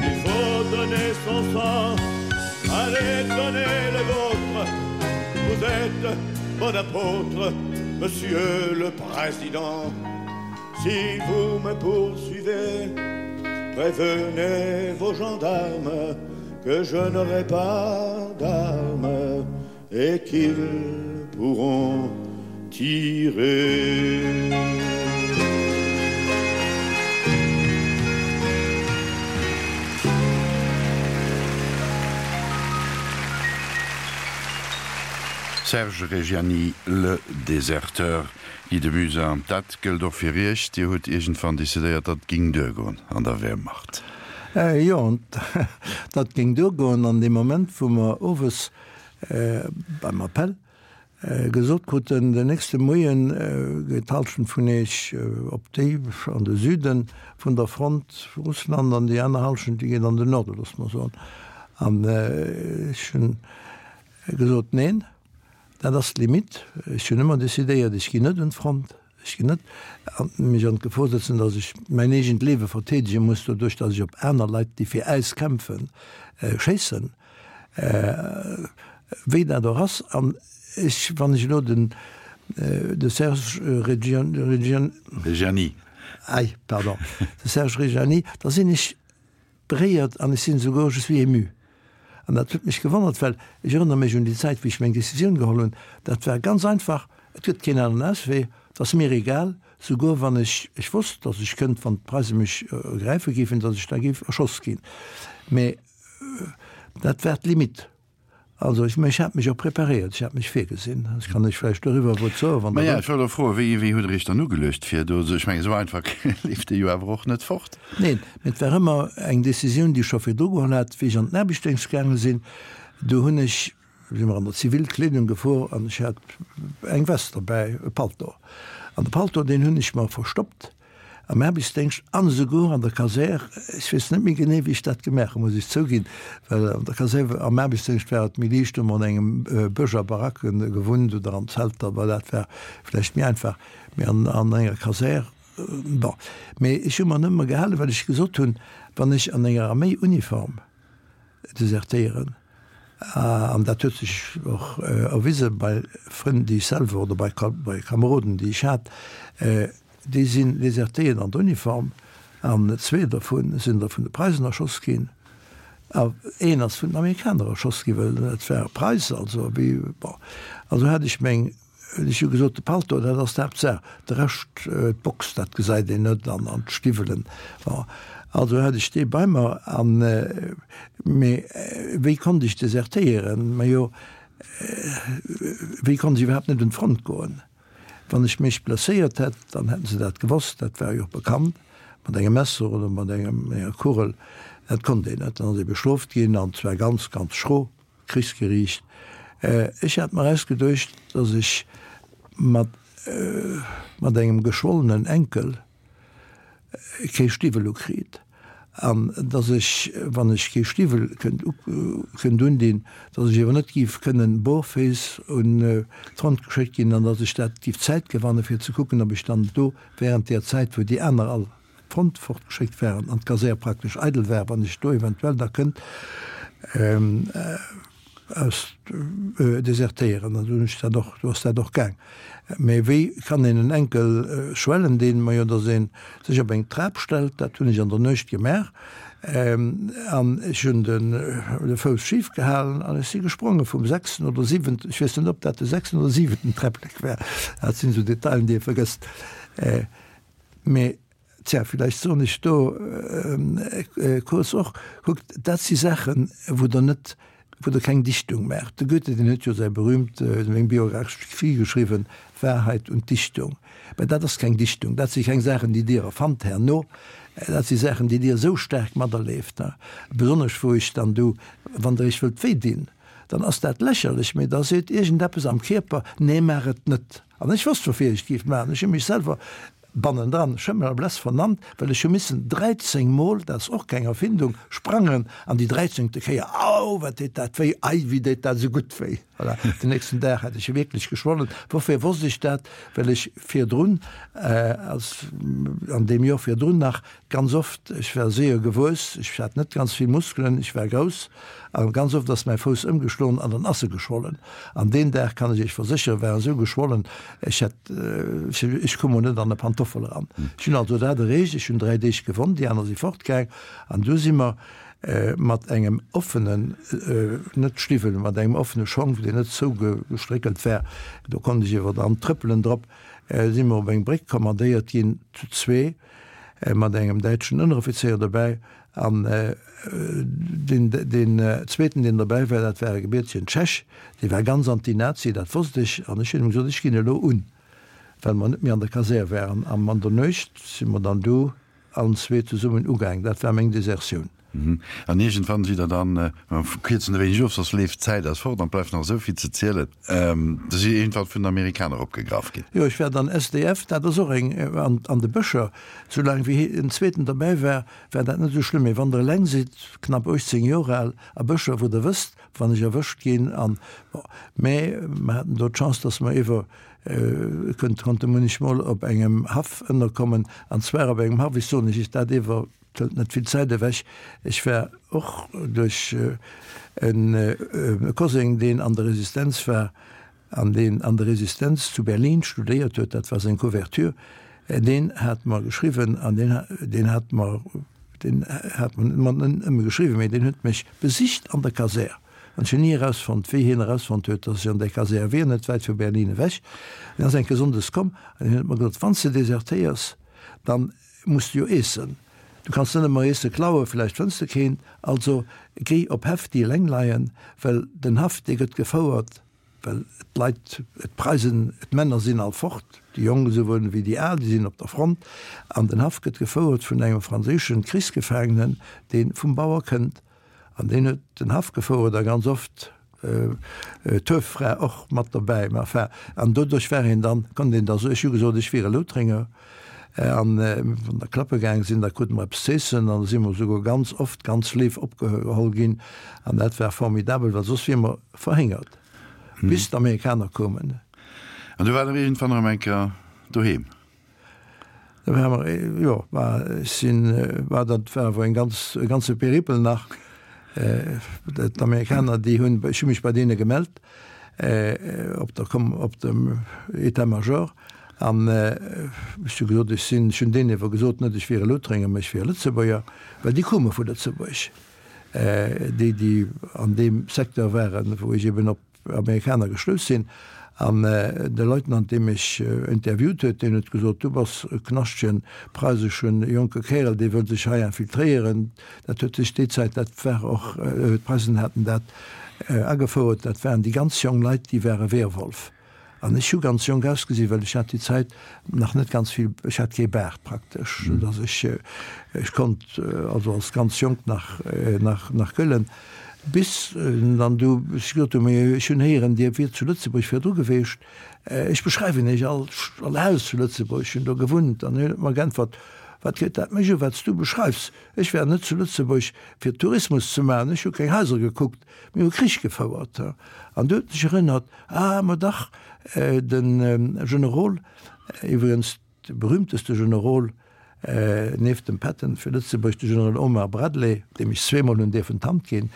Il faut donner son sang, allez donner le vôtre, vous êtes bon apôtre, monsieur le président. Si vous me poursuivez, prévenez vos gendarmes que je n'aurai pas d'armes et qu'ils pourront tirer. Serge Reggiani, Le Déserteur, Guy de Muzin, dat gëllt och fir Iech. Dir hutt iergendwann decidéiert, dat ging duergoen an der Wehrmacht. Jo, dat ging duergoen an deem Moment, wou mer owes beim Appell gesot kruten, den nächste Moie geet d'Halschent vun Iech op déi an de Süde vun der Front, Russland, an déi aner Halschent, déi geet an den Norden, loosse mer soen. An ech hunn gesot, Neen, dat ass d'Limite. Ech hunn ëmmer decidéiert, ech ginn net un d'Front, ech ginn net mech an d'Gefor setzen, datt ech mäin eegent Liewe verteedege muss, doduerch datt ech op aner Leit, déi fir äis kämpfen, schéissen. Wéi dat och ass, an ech, wann ech elo den, de Serge Reggiani. Reggiani. Ei, pardon, de Serge Reggiani, da sinn ech beréiert an ech sinn esouguer, je suis ému. An dat huet mech gewonnert, well ech erënnere mech un déi Zäit, wéi ech meng Décisioun geholl hunn, dat war ganz einfach, et gëtt keen aneren Auswee, et ass mir egal, souguer wann ech, ech wosst, datt ech kënnt, wann d'Preise mech ergräife géifen, datt ech da géif erschoss ginn. Mä Dat war d'Limite. Also ech, ech hat mech och preparéiert, ech hat mech virgesinn. Ech kann lech vläicht doriwwer e Wuert soen, wann Der Maja, wëllt. ech wollt och froen, wéi, wéi hutt Der Iech dann ugeluecht fir do, ech mengen, esou einfach leeft Dir jo awer och net fort. Neen, mee et war ëmmer eng Décisioun, déi ech scho virdru geholl hat, wéi ech an den Aarbechtsdéngscht gaange sinn. Do hunn ech, si mer an der Zivilkleedung gefuer an ech hat eng Vest derbäi, e Palto. An de Palto, deen hunn ech mer verstoppt Am Aarbechtsdéngscht an esouguer an der Kasär, ech weess net méi genee, wéi ech dat gemaach hunn, muss ech zouginn, well an der Kasär, am Aarbechtsdéngscht war et méi liicht, hu mer an engem Bësch a Baracke gewunnt oder an Zelter, well dat war vläicht méi einfach, mee an an enger Kasär, bon. Mee ech hu mer nëmme gehalen, well ech gesot hunn, wann ech an enger Arméiuniform desertéieren, an dat huet sech och erwise bei Frënn, déi ech selwer oder bei bei Kameroden, déi ech hat, Déi sinn desertéiert an der Uniform, an zwee dervu sinn der vun de Preisen erschoss ginn, a een ass vun den Amerikaner erschoss ginn, well et war e Preis, also wéi, bon. Also hat ech meng, ech hu gesot, de Palto, dat ass d'Haaptsaach, de Rescht, d'Box, dat gesäit een net, an an d'Stiwwelen, bon. Also hat ech dee bei mer, an, mee wéi konnt ech desertéieren? Majo, wéi konnt ech iwwerhaapt net un d'Front goen? Wann ech mech blesséiert hätt, dann hätten se dat gewosst, dat war jo och bekannt, mat engem Messer oder mat enger Kugel, dat konnt een net. Dann ass ee bestrooft ginn, an zwar ganz, ganz schro, Krichsgeriicht. Ech hat mer ausgeduecht, datt ech mat engem geschwollenen Enkel, kee Stiwwel ukritt an dass ech, wann ech kee Stiwwel kënnt kënnt undinn, dass ech awer net géif kënnen barféiss un d'Front geschéckt ginn an dass ech dat géif Zäit gewanne fir ze kucken, ob ech dann do während där Zäit, wou déi aner all d'Front fortgeschéckt waren an d'Kasär praktesch eidel war, wann ech do eventuell da kënnt aus desertéieren. An du hunn ech dat och, du ass dat och gaang. Mee wéi kann een en Enkel schwellen deen? Majo, datt ee sech op eng Trap stellt, dat hunn ech an der Nuecht gemaach. An ech hunn de Fouss schif gehalen an ech si gespronge vum sechsten oder siwenten, ech weess net, ob dat de sechsten oder siwenten Träpplek war, dat sinn esou Detailen, déi ee vergësst. Mee Tja, villäicht soen ech do kuerz och, kuckt, dat si Saachen, wou Der net, wou Der keng Dichtung maacht. De Goethe, deen huet jo säi berühmt, seng Biographie geschriwwen, Wahrheit und Dichtung. Mä dat ass keng Dichtung, dat si keng Saachen, déi Dir erfannt herno, dat si Saachen, déi Dir esou staark materleeft, besonnesch wou ech dann du, wann Der Iech wëllt wéi dinn, dann ass dat lächerlech, mä da seet iergendeppes am Kierper, nee, maach et net. An ech wosst, woufir ech et géif maachen. Ech hu mech selwer bannendran Schëmmel a Bless vernannt, well ech hu missen 13 Mol, dat ass och keng Erfindung, sprangen an déi dräizéngte Kéier, au, wat deet dat wéi, ei, wéi deet dat esou gutt wéi. Voilà, den nächsten Dag hat ech wierklech geschwollen. Woufir wosst ech dat? Well ech virdrun, als an deem Joer virdrun nach, ganz oft, ech war séier gewuess, ech hat net ganz vill Muskelen, ech war grouss, a ganz oft ass mäi Fouss ëmgeschloen an dann ass e geschwollen. An deen Dag, kann ech Iech versécheren, war esou geschwollen, ech hätt, ech koum mol net an e Pantoffel eran. Ech hunn also dat erreecht, ech hunn 3 Deeg gewonnt, déi aner si fortgaang an du si mer mat engem offenen, net Stiwwel, mat engem offene Schong, deen net zougestréckelt war, do konnt ech iwwer dran trëppelen drop, si mer op eng Bréck kommandéiert ginn, zu zwee, mat engem däitschen Ënneroffizéier dobäi. An deen, deen zweeten, deen dobäi war, dat war e gebiertegen Tschech, dee war ganz anti-Nazi, dat wosst ech. An ech hunn him gesot, ech ginn elo un, well mer net méi an der Kasär waren. An an der Nuecht si mer dann du Allen zwee zesummen ugaang. Dat war meng Desertioun. An iergendwann sidd Der dann, mer kierzen e wéineg of, soss leeft d'Zäit eis fort an et bleift nach esou vill ze zielen, Der sidd iergendwann vun den Amerikaner opgegraff ginn. Jo, ech war dann SDF, dat ass och eng, an de Bëscher. Soulaang wéi en zweeten derbäi war, war dat net esou schlëmm. Mee wann Der eleng sidd, knapp 18 Joer al, a Bëscher, wou Der wësst, wann ech erwëscht ginn an, bon. Mä mer haten do d'Chance, dass mer iwwer Kënnt konnte munnechmol op engem Haff ënnerkommen, an zwar op engem Haff, ech soen iech dat ewer, et hëlt net vill Zäit ewech, ech war och duerch e Koseng, deen an der Resistenz war an deen an der Resistenz zu Berlin studéiert huet, dat war seng Couverture, deen hat mer geschriwwen an deen, deen hat mer, deen hat mer net nëmme geschriwwen, mee deen huet mech besicht an der Kasär. An ech hunn ni erausfonnt, wéi hien erausfonnt huet, datt ech an där Kasär wier, net wäit vu Berlin ewech. En ass eng Kéier sonndes komm an hien huet mer gesot, Wann s de desertéiers, da muss de jo eessen. Du kanns net ëmmer Eesse klauen, vläicht fënns de keent. Also géi op Häff, déi eleng leien, well den Haff, dee gëtt gefouert, well d'Leit, d'Preisen, d'Männer sinn all fort, déi Jonk esouwuel wéi déi Al, déi sinn op der Front. An den Haff gëtt gefouert vun engem franséische Krichsgefaangenen, dee vum Bauer kënnt. An deen huet den Haff gefouert a ganz oft d'Hueffra och mat dobäi. Mä enfin, an doduerch war een dann, konnt een da soen, ech hu gesot, ech wier e Loutrenger. An wann der klappe gaang sinn, da krute mer eppes z'eessen an da si mer esouguer ganz oft ganz léif opgeholl ginn. An dat war formidabel, well soss wier mer verhéngert, bis d'Amerikaner koumen. An du waart der iergendwann erëm eng Kéier doheem? Da war mer, jo, war, ech sinn, war dat war awer eng ganz, e ganze Peripel nach. D'Amerikaner, déi hunn, ech hu mech bei deene gemellt, op der Kom, op dem État-major, an ech hu gesot, ech sinn, ech hunn deenen ewer gesot, net ech wier e Loutrenger, mä ech wier e Lëtzebuerger, well déi koume vu Lëtzebuerg, déi, déi an deem Secteur waren, wou ech eben op Amerikaner gestouss sinn. An de Leutnant, dee mech interviewt huet, deen huet gesot, Du bass e knaschtegen preiseschen jonke Kärel, dee wëll sech hei infiltréieren. Dat huet sech déi Zäit, dat war och, d'Preisen haten dat agefouert, dat waren déi ganz jong Leit, déi ware Wehrwolf. An ech hu ganz jonk ausgesinn, well ech hat déi Zäit nach net ganz vill, ech hat kee Baart praktesch, soudass ech, ech konnt also als ganz jonk nach, nach, nach gëllen. Bis dann du ech gesot hunn, mee ech hunn héieren, Dir wiert zu Lëtzebuerg virdru geweecht, ech beschreiwen Iech all, all Haus zu Lëtzebuerg, ech hunn do gewunnt. An hien huet mer geäntwert, Wat geet dat mech u, wat s du beschreifs? Ech war net zu Lëtzebuerg fir Tourismus ze maachen, ech hu keng Haiser gekuckt, mir hu Krich gefouert. An du huet sech erënnert, Ah, ma dach, de Generol, iwwregens de berühmteste Generol nieft dem Patton fir Lëtzebuerg, de Generol Omar Bradley, deem ech zweemol hunn dierfen d'Hand ginn,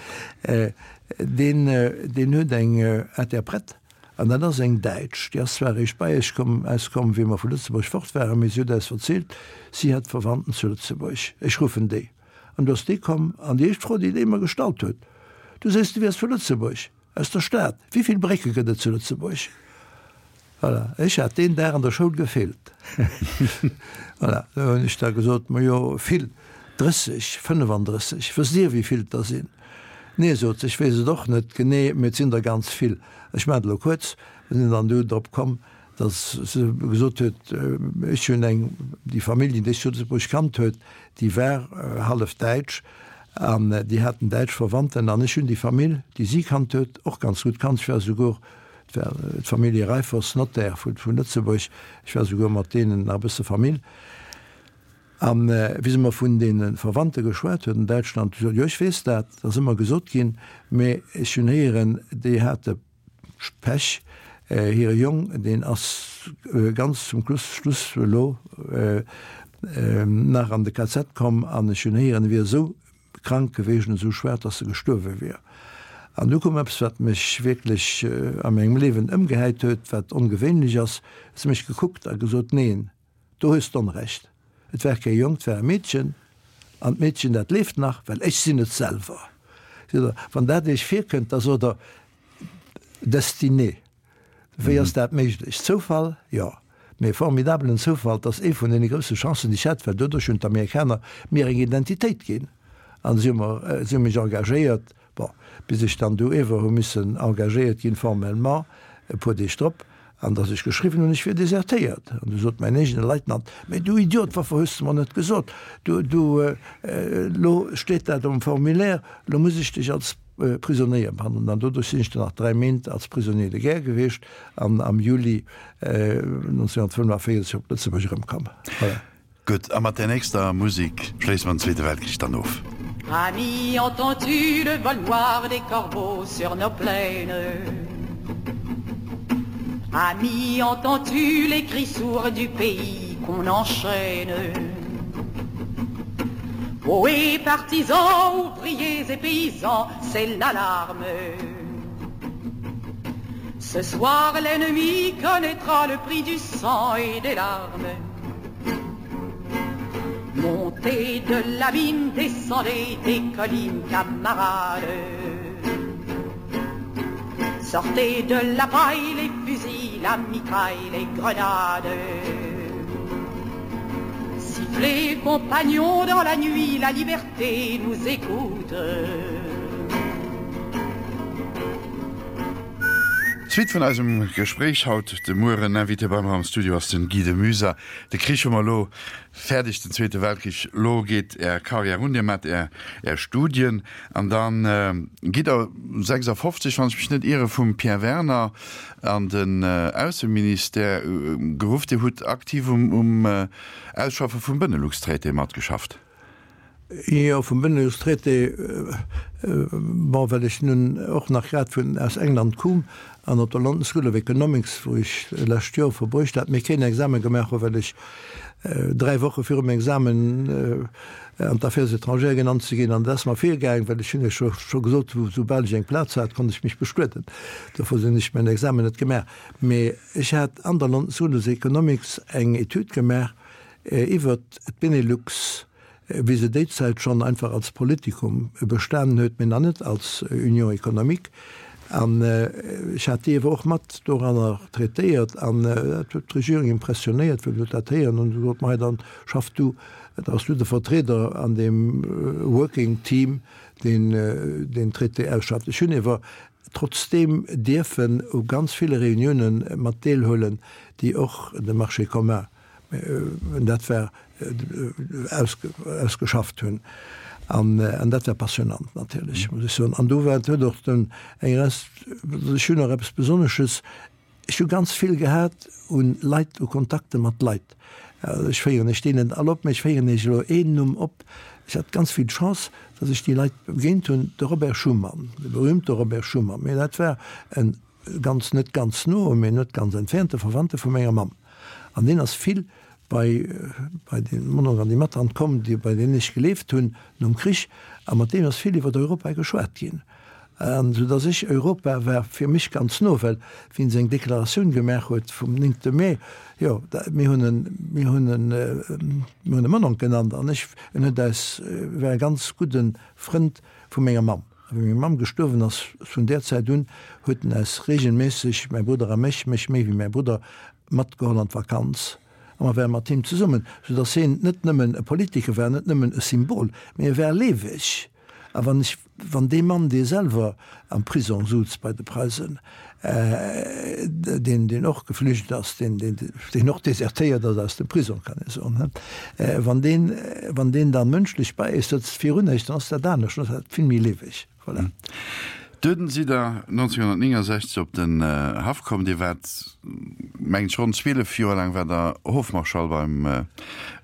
deen, deen huet eng Interprète, an dat ass eng Däitsch, déi ass zwar eréischt bei eis komm, eis komm, wéi mer vu Lëtzebuerg fort waren, mee si huet eis verzielt, si hätt Verwandten zu Lëtzebuerg. Ech ruffen déi. An du ass déi komm, an déi éischt Fro, déi déi mer gestallt huet, Du sees, du wiers vu Lëtzebuerg? Aus der Stad. Wéi vill Brécke gëtt et zu Lëtzebuerg? Voilà, ech hat deen Dag an der Schoul gefeelt. Voilà, do hunn ech da gesot, Majo, vill, 30, 35. Wësst Dir, wéi vill et der sinn? Nee, sot se, ech weess et och net genee, mee et sinn der ganz vill. Ech maachen et elo kuerz, mir sinn dann du drop komm, datt se gesot huet, ech hunn eng, déi Familljen, déi ech zu Lëtzebuerg kannt huet, déi war hallef däitsch an déi haten däitsch Verwandten an ech hunn déi Famill, déi si kannt huet, och ganz gutt kannt. Ech war souguer, Et war d'Famillje Reiffers, Notaire vu Lëtzebuerg. Ech war souguer mat deenen nach e bësse Famill. A wéi se mer vun deene Verwandte geschwat huet an Däitschland, du sot, jo ech weess dat, dat ass ëmmer gesot ginn, mä ech hunn héieren, déi hate Pech, hire Jong, deen ass ganz zum Schluss elo nach an de KZ komm an ech hunn héieren, e wier esou krank geweecht an esou schwaach, dass e gestuerwe wier. An du koum eppes, wat mech wierklech a mengem Liewen ëmgehäit huet, wat ongewéinlech ass, huet se mech gekuckt a gesot, Neen, do hues d'Onrecht, et war kee Jong, et war e Meedchen, an d'Meedchen, dat leeft nach, well ech sinn et selwer. Seet der, wann dat Iech virkënnt, da sot Der, Destinée. Wéi ass dat méiglech? Zoufall? Jo, mee e formidabelen Zoufall. 't ass ee vun deene grousse Chancen, déi ech hat, well doduerch hunn d'Amerikaner mir eng Identitéit ginn an si hu mer, si hu mech engagéiert, bon, bis ech dann du ewer hu missen engagéiert ginn formellement e puer Deeg drop, an datt ech geschriwwen hunn, ech wier desertéiert. An du sot mäin eegene Leitnant, Mee du Idiot, woufir hues de mer net gesot, du, du, elo steet dat um Formulaire, elo muss ech dech als Prisonéier behandelen. An doduerch sinn ech dann nach 3 Méint als Prisonnier de guerre gewiescht an am Juli 1945 op Lëtzebuerg erëmkomm. Voilà. Gutt, a mat där nächster Musek schléisse mer den Zweete Weltkrich dann of. Ami, entends-tu le vol noir des corbeaux sur nos plaines? Ami, entends-tu les cris sourds du pays qu'on enchaîne? Ohé, partisans, ouvriers et paysans, c'est l'alarme. Ce soir, l'ennemi connaîtra le prix du sang et des larmes. Montez de la mine, descendez des collines, camarades. Sortez de la paille, les fusils, la mitraille, les grenades. Sifflez, compagnons, dans la nuit, la liberté nous écoute. Suite vun eisem Gespréich haut de Mueren. Invité bei mer am Studio ass den Guy de Muyser. De Krich hu mer elo fäerdeg, den Zweete Weltkrich. Elo geet Är Carrière un, Dir maacht Är Studien an da gitt Der 56, wann ech mech net iere, vum Pierre Werner an den Ausseministère geruff. Dir hutt aktiv um Ausschaffe vum Benelux-Traité matgeschafft. Jo, vum Benelux-Traité, bon, well ech nun och nach grad vun aus England koum an op der London School of Economics, wou ech lescht Joer verbruecht hat, mee keen Examen gemaach hu well ech 3 Woche virum Examen an d'Affaires étrangères genannt ze ginn. An dat ass mer virgaang, well ech hunn iech jo scho gesot, soubal ech eng Plaz hat, konnt ech mech bestueden. Dofir hunn ech mäin Examen net gemaach. Mee ech hat an der London School of Economics eng Etüd gemaach, Iwwert d'Benelux, wéi se déi Zäit schonn einfach als Politikum bestanen huet, mee nach net als Union économique. An ech hat déi ewer och mat doranner traitéiert an dat huet d'Regierung impressionéiert, wéi se dat héieren hunn. Se gesot, Mei, dann schaff du, da bass du de Vertrieder an deem Working Team, deen deen Traité ausschafft. Ech hunn ewer trotzdeem dierfen u ganz ville Reuniounen mat deelhuelen, déi och de Marché commun Dat war ausgeschafft hunn. An dat war passionnant natierlech, muss ech soen. An do war, huet och den eng Rest, ech hunn och eppes Besonnesches, ech hu ganz vill gehat u Leit, u Kontakte mat Leit. Ech féieren iech déi net all op, mä ech féieren iech elo een Numm op. Ech hat ganz vill Chance, datt ech déi Leit begéint hunn, de Robert Schuman, de berühmte Robert Schuman. Mä dat war en ganz, net ganz no, mee net ganz entfernte Verwandte vu menger Mamm. An deen ass vill bei, bei de Mononk an déi Mattant komm, déi, bei deenen ech gelieft hunn nom Krich. A mat deem ass vill iwwer Europa geschwat ginn. An esou dass ech, Europa war fir mech ganz no, well wéi en seng Deklaratioun gemaach huet vum néngte Mee, jo, da, mir hunn en, mir hunn en, mir hunn e Mononk genannt an ech, en huet eis, war e ganz gudde Frënd vu menger Mamm. A wéi meng Mamm gestuerwen ass, vun där Zäit un huet en eis regelméisseg, mäi Brudder a mech, mech méi wéi mäi Brudder, matgeholl an d'Vakanz. A mer ware mat him zesummen, soudass hien net nëmmen e Politiker war, net nëmmen e Symbol, mee e war lieweg. A wann ech, wann dee Mann, dee selwer am Prisong souz bei de Preisen, deen, deen och geflücht ass, deen, deen, deen och desertéiert ass aus dem Prisong, kann ee soen, he, wann deen, wann deen da mënschlech bei eis sëtzt, virun eis, dann ass dat anescht, dann ass dat vill méi lieweg. Voilà. Dunn sidd Der 1969 op den Haff komm. Dir waart, mengen ech, ronn 12 Joer laang waart Der Hofmarschall beim,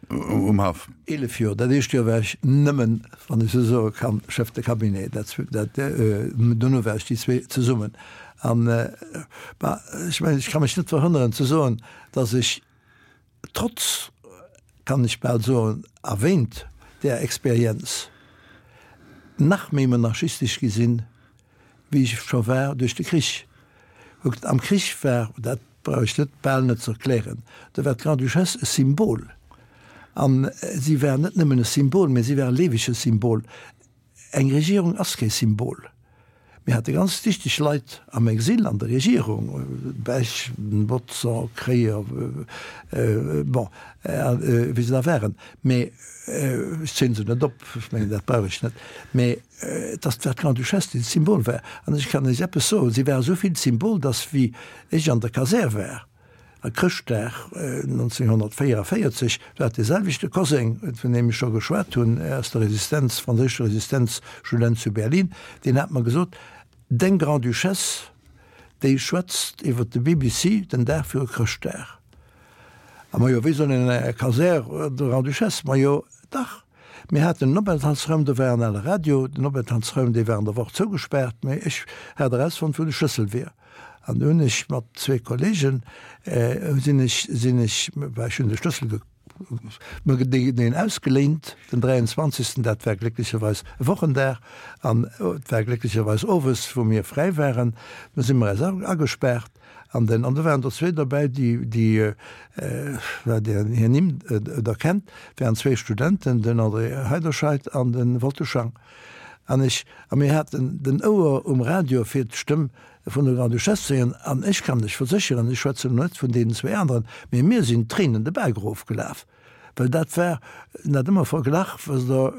um Haff. 11 Joer. Dat éischt Joer war ech nëmmen, wann ech esou soe kann, Chef de Cabinet. Dat, dat, dono war ech déi zwee zesummen. An, bah, ech mengen, ech ka mech net verhënneren ze soen, dass ech trotz, kann ech bal soen, a wéint där Experienz nach méi monarchistesch gi sinn, wéi ech scho war duerch de Krich. Kuckt, am Krich war, dat brauch ech net, bal net ze erklären, do war d'Grande-Duchesse e Symbol. A si war net nëmmen e Symbol, mä si war e liewege Symbol. Eng Regierung ass kee Symbol. Mir hate ganz dichteg Leit am Exil an der Regierung, Bech, Bodson, Kreyer, bon, wéi se da waren. Mee ech zielen se net op, ech mengen, dat brauch ech net. Mee et ass war d'Grande-Duchesse, déi d'Symbol war. An ech kann Iech eppes soen, Si war esou vill d'Symbol, datt wéi ech an der Kasär war, A Chrëschtdag 1944 war dee selwechte Koseng, vun deem ech scho geschwat hunn, aus der Resistenz, franséischer Resistenz, Student zu Berlin, deen hat mer gesot, Deng Grande-Duchesse, déi schwätzt iwwer de BBC den Dag viru Chrëschtdag. A majo, wéi soll een an enger Kasär der Grande-Duchesse? Majo, dach, mir haten en Openthaltsraum, do war en ale Radio, den Openthaltsraum, dee war an der Woch zougespaart, mä ech hat erausfonnt, wou de Schlëssel wier. An du hunn ech mat zwee Kollegen, sinn ech, sinn ech, well ech hunn de Schlëssel mer deen ausgeléint, den 23. Dat war glécklecherweis e Wochendag an et war glécklecherweis owes, wou mir fräi waren. Du si mer eis agespaart an den, an do waren der zwee derbäi, déi, déi, well Dir hir Nimm der kennt, waren zwee Studenten, den André Heiderscheid an de Wolter Schang. An ech, a mir haten den Ouer um Radio fir d'Stëmm vun der Grande-Duchesse ze héieren. An ech kann lech versécheren, ech schwätzen elo net vun deenen zwee aneren, mee mir sinn d'Tréinen de Baak erofgelaf, well dat war, en hat ëmmer verglach, wësst Der,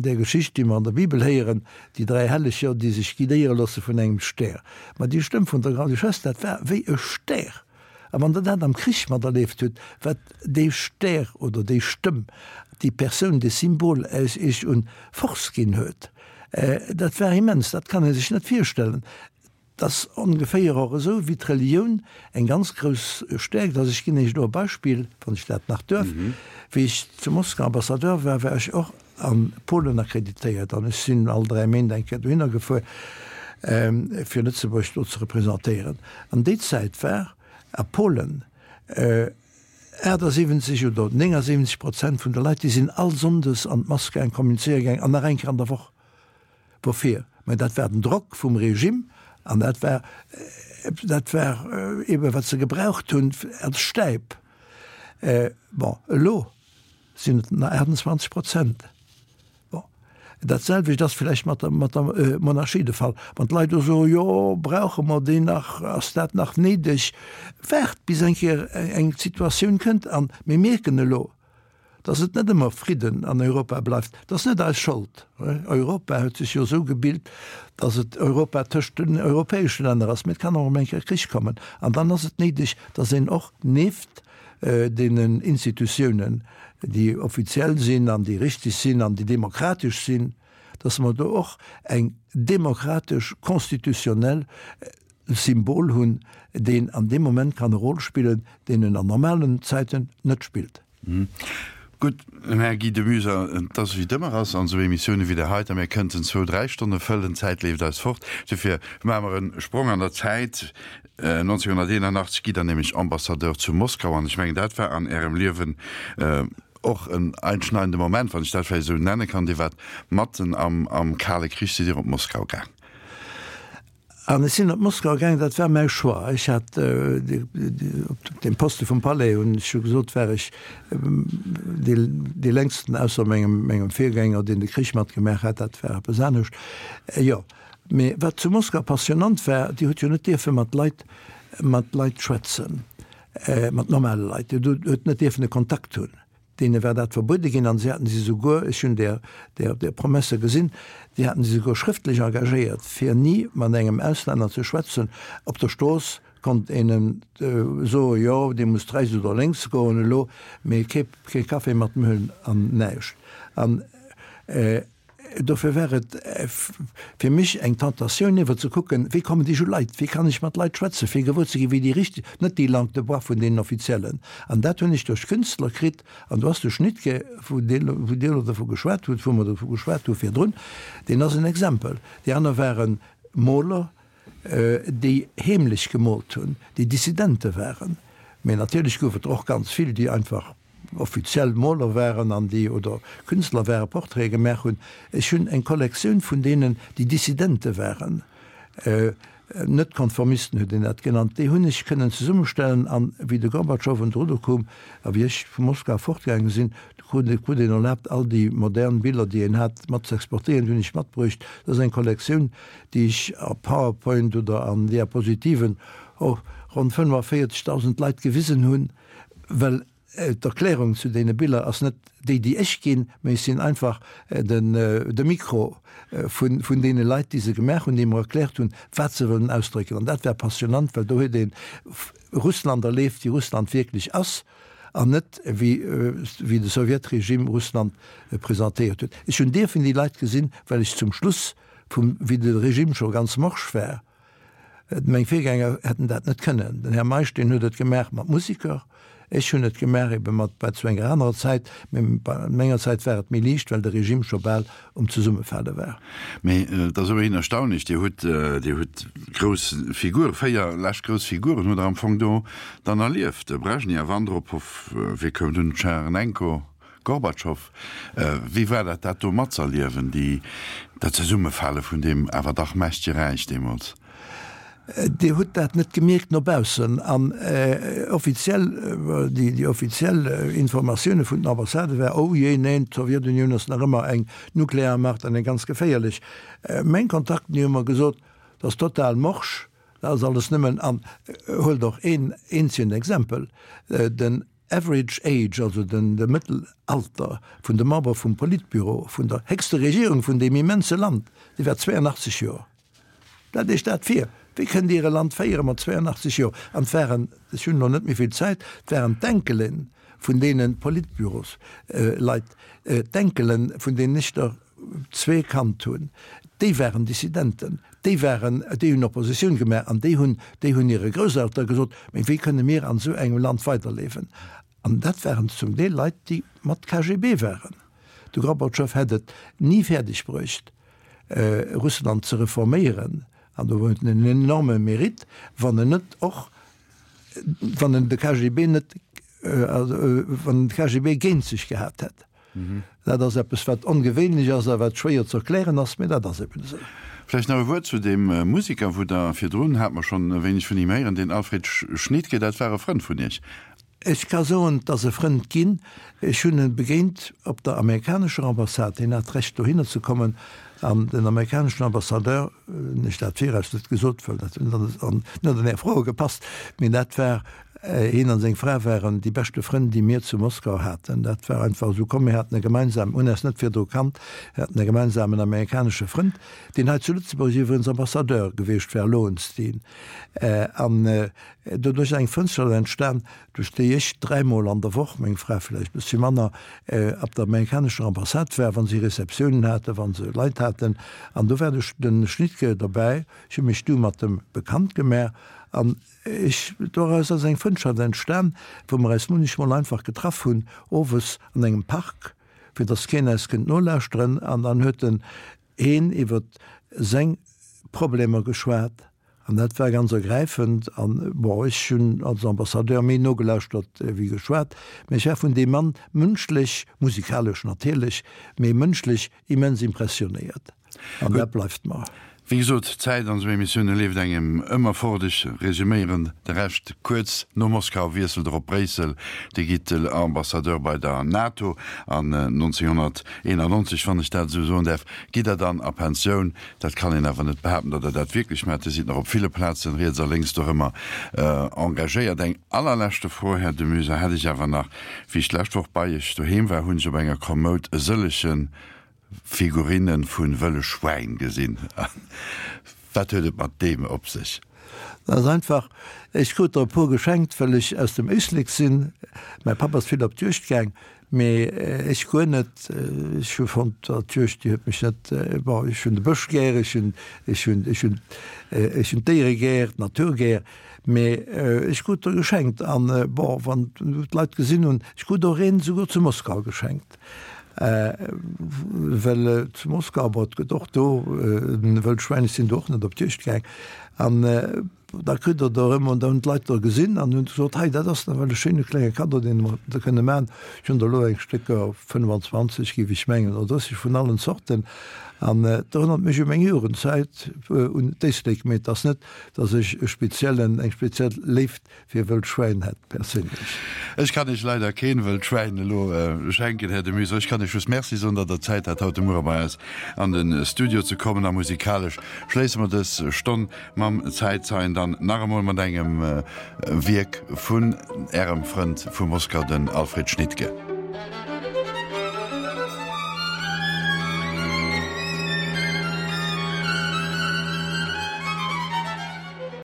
där Geschicht, déi mer an der Bibel héieren, déi dräi Helleger, déi sech guidéiere loosse vun engem Stär. Ma déi Stëmm vun der Grande-Duchesse, dat war wéi e Stär. A wann Der dat am Krich materlieft hutt, wat dee Stär oder déi Stëmm, déi Persoun, dee Symbol äis Iech un Force ginn huet, dat war immens, dat kann ee sech net virstellen. Et ass ongeféier och esou wéi d'Relioun eng ganz grouss Stäerkt ass. Ech ginn Iech elo e Beispill, wann ech dat nach duerf. Wéi ech zu Moskau Ambassadeur war, war ech och a Polen akkreditéiert an ech sinn all 3 Méint eng Kéier dohinner gefuer, fir Lëtzebuerg do ze representéieren. An déi Zäit war a Polen 78 oder 79 Prozent vun de Leit, déi sinn all Sonndes an d'Mass gaang, kommunizéiere gaang an nach eng Kéier an der Woch. Woufir? Mä dat war den Drock vum Regime an dat war, dat war eebe wat se gebraucht hunn als Stäip. Bon, elo sinn et nach 28 Prozent. Bon, dat selwecht ass vläicht mat der, mat der Monarchie de Fall. Wann d'Leit do soen, jo, brauche mer déi nach, ass dat nach néideg? Waart bis eng Kéier eng Situatioun kënnt. An mir mierken elo, dass et net ëmmer Fridden an Europa bleift. Dat ass net eis Schold. Europa huet sech jo esou gebilt, dass et Europa tëscht den europäesche Länner ass. Mee et kann och emol eng Kéier Krich kommen. An dann ass et néideg, dass een och nieft deenen Institutiounen, déi offiziell sinn an déi richtig sinn an déi demokratesch sinn, dass mer do och eng demokratesch constitutionnel Symbol hunn, deen an deem Moment kann e Rôle spillen, deen en an normalen Zäiten net spillt. Gutt, Här Guy de Muyser, et ass wéi et ëmmer ass an esou Emissioune wéi där heiter, mir kënnten zwou, dräi Stonne fëllen, d'Zäit leeft eis fort. Dofir maache mer e Sprong an der Zäit. 1981 gitt Der nämlech Ambassadeur zu Moskau an ech mengen, dat war an Ärem Liewen och en einschneidende Moment, wann ech dat vläicht esou nenne kann. Dir waart matten am Kale Krich, sidd Dir op Moskau gaang. An ech sinn op Moskau gaangen, dat war mäi Choix. Ech hat op deem Poste vum Palais, hunn ech jo gesot, war ech dee längsten, ausser mengem, mengem Virgänger, deen de Krich matgemaach hat, dat war eppes anescht. Jo, mee wat zu Moskau passionnant war, Dir hutt jo net dierfe mat Leit, mat Leit schwätzen, mat normale Leit. Dir hutt net dierfen e Kontakt hunn. Deene war dat verbuede ginn an si haten si souguer, ech hunn där, där, där Promesse gesinn, déi haten si souguer schrëftlech engagéiert, fir ni mat engem Auslänner ze schwätzen. Op der Strooss konnt een em soen, jo, Dir musst rechts oder lénks goen elo, mee kee, kee Café mat em huelen an näischt. An. Dofir war et fir mech eng Tentatioun iwwer ze kucken, wéi kommen déi u Leit, wéi kann ech mat Leit schwätzen, fir gewuer ze ginn, wéi déi richteg, net déi Langue de bois vun deenen Offiziellen. An dat hunn ech duerch Künstler kritt. An do ass de Schnittke, wou Dir elo dovu geschwat hutt, wou mer dovu geschwat hu virdrun, deen ass en Exempel. Déi aner ware Moler, déi heemlech gemoolt hunn, déi Dissidente waren. Mee natierlech gouf et der och ganz vill, déi einfach offiziell Moler waren an déi, oder Künstler waren, Portraite gemaach hunn. Ech hunn eng Kollektioun vun deenen, déi Dissidente waren, Net-Konformisten huet een dat genannt, déi hunn ech kënnen zesummestellen. An wéi de Gorbatschow un d'Rudder koum a wéi ech vu Moskau fortgaange sinn, du krut krut een erlaabt, all déi modern Biller, déi een hat, mat ze exportéieren. Déi hunn ech matbruecht. Dat ass eng Kollektioun, déi ech a Powerpoint oder an Diapositiven och ronn 45.000 Leit gewisen hunn, well d'Erklärung zu deene Biller ass net déi, déi ech ginn, mä ech sinn einfach den de Mikro vun vun deene Leit, déi se gemaach hunn, déi mer erkläert hunn, wat se wëllen ausdrécken. An dat war passionnant, well do huet ee Russland erleeft, wéi Russland wierklech ass, an net wéi wéi de Sowjetregime Russland presentéiert huet. Ech hunn dierfen déi Leit gesinn, well ech zum Schluss vum, wéi de Regime scho ganz morsch war, meng Virgänger hätten dat net kënnen, den Här Meisch, deen huet et gemaach mat Musiker, ech hunn et gemaach ebe mat, war zu enger anerer Zäit, mä bei menger Zäit war et méi liicht, well de Regime scho bal um Zesummefale war. Mä et ass ëmmerhin erstaunlech, Dir hutt, Dir hutt grouss Figuren, 4 lescht grouss Figuren hutt Der am Fong do dann erlieft, de Brejnew, Andropow, wie koum dunn, Tschernenko, Gorbatschow, wéi war dat, dat do matzerliewen, déi, dat Zesummefale vun deem awer dach mächtege Räich deemools? Dir hutt dat net gemierkt no baussen. An offiziell, déi offiziell Informatioune vun den Ambassade war, Oh jee, neen, d'Sowjetunioun ass nach ëmmer eng Nuklearmacht an eng ganz geféierlech. Meng Kontakten, déi hu mer gesot, dat ass total morsch, dat ass alles nëmmen, an huelt och een eenzegen Exempel, den Average age, also den de Mëttelalter vun de Member vum Politbüro vun der héchste Regierung vun deem immense Land, dee war 82 Joer. Stellt Iech dat vir! Wéi kënnt Dir e Land féiere mat 82 Joer? An et waren, ech hunn elo net méi vill Zäit, et waren d'Enkele vun deene Politbürosleit, d'Enkele vun deenen ech der zwee kannt hunn, déi waren Dissidenten, déi waren, déi hunn Oppositioun gemaach an déi hunn, déi hunn hire Grousseltere gesot, Mee wéi kënne mir an esou engem Land weiderliewen? An dat waren zum Deel Leit, déi mat KGB waren. De Gorbatschow hätt et ni fäerdeg bruecht, Russland ze reforméieren, an do huet en en enorme Mérite, wann en net och, wann en de KGB net, wann en de KGB géint sech gehat hätt. Dat ass eppes, wat ongewéinlech ass a wat schwéier ze erklären ass, mee dat ass eben esou. Vläicht nach e Wuert zu deem Musiker, wou Der virdrun, hat mer schonn e wéineg vun him héieren, deen Alfred Schnittke, dat war e Frënd vun Iech. Ech ka soen, 't ass e Frënd ginn. Ech hunn e begéint op der amerikanescher Ambassade. Hien hat d'Recht dohinner ze kommen an den amerikaneschen Ambassadeur, hunn ech dat viraus net gesot, well dat huet net an Är Froe gepasst, mee dat war Hien an seng Fra waren déi beschte Frënn, déi mir zu Moskau haten. Dat war einfach esou komm. Mir haten e gemeinsamen, hunn eis net virdru kannt, mir haten e gemeinsamen amerikanesche Frënd, deen hei zu Lëtzebuerg iwwregens Ambassadeur gewiescht war, Lowenstein. An doduerch ass eng Frëndschaft entstan, duerch déi ech dräimol an der Woch, meng Fra vläicht e bëssche manner, op der amerikanescher Ambassade war, wa si Receptiounen haten, wa se Leit haten. An do war de Schnittke derbäi. Ech hu mech du mat em bekannt gemaach an Ech, doraus ass eng Frëndschaft entstan, wou mer eis munnechmol einfach getraff hunn, owes an engem Park, fir dass keen eis kënnt nolauschteren, an dann huet en een iwwer seng Problemer geschwat, an dat war ganz ergräifend. An, bon, ech hunn als Ambassadeur méi nogelauschtert wéi geschwat, mä ech war vun deem Mann mënschlech, musikalesch natierlech, mee mënschlech immens impressionéiert. An dat bleift mer. Wéi gesot, d'Zäit an esou Emissioune leeft engem ëmmer fort. Ech resuméieren de Rescht kuerz. No Moskau wiesselt er op Bréissel, Dir gitt Ambassadeur bei der NATO an 1991, wann ech dat esou soen däerf, gitt Der dann a Pensioun. Dat kann een awer net behaapten, datt Der dat wierklech maacht. Dir sidd nach op ville Plazen, riets a lénks dorëmmer, engagéiert. Eng allerleschte Fro, Här de Muyser, hätt ech awer nach. Wéi ech d'lescht Woch bei Iech doheem war, hunn ech op enger Kommoud e sëllege Figurinne vu wëlle Schwäin gesinn. Wat huet et mat deem op sech? Dat ass einfach, ech krut der e puer geschenkt, well ech aus dem Éislek sinn. Mäi Papp ass vill op d'Juegd gaang. Mee ech guer net. Ech hu fonnt, d'Juegd, déi huet mech net, bon, ech hunn de Bësch gär, ech hunn, ech hunn, ech hunn, ech hunn d'Déiere gär, d'Natur gär, mee ech krut der geschenkt. An, bon, wann d'Leit gesinn hunn, ech krut och een esouguer zu Moskau geschenkt, well zu Moskau, bon, et gëtt och do Wëllschwäin, ech sinn do och net op d'Juegd gaang, an, Da kritt Der der erëm, an da hunn d'Leit der gesinn an hunn gesot, hei dat ass nawell e schéine klenge Kaddo, deen mer der kënne maachen. Ech hunn der elo eng Stécker 25, géif ech mengen, oder 30 vun allen Zorten. An et erënnert mech u meng Jugendzäit, un d'Éislek. Mee et ass net, datt ech e speziellen, eng speziell Léift fir wëllt Schwäin hätt, perséinlech. Ech kann Iech leider keen wëllt Schwäin elo schenken, Här de Museau. Ech kann Iech just Merci soen, datt Der Zäit hat, haut de Muere bei eis an de Studio ze kommen. A musikalesch schléisse mer dës Stonn mam Zäitzeien dann nach emol mat engem Wierk vun Ärem Frënd vu Moskau, den Alfred Schnittke.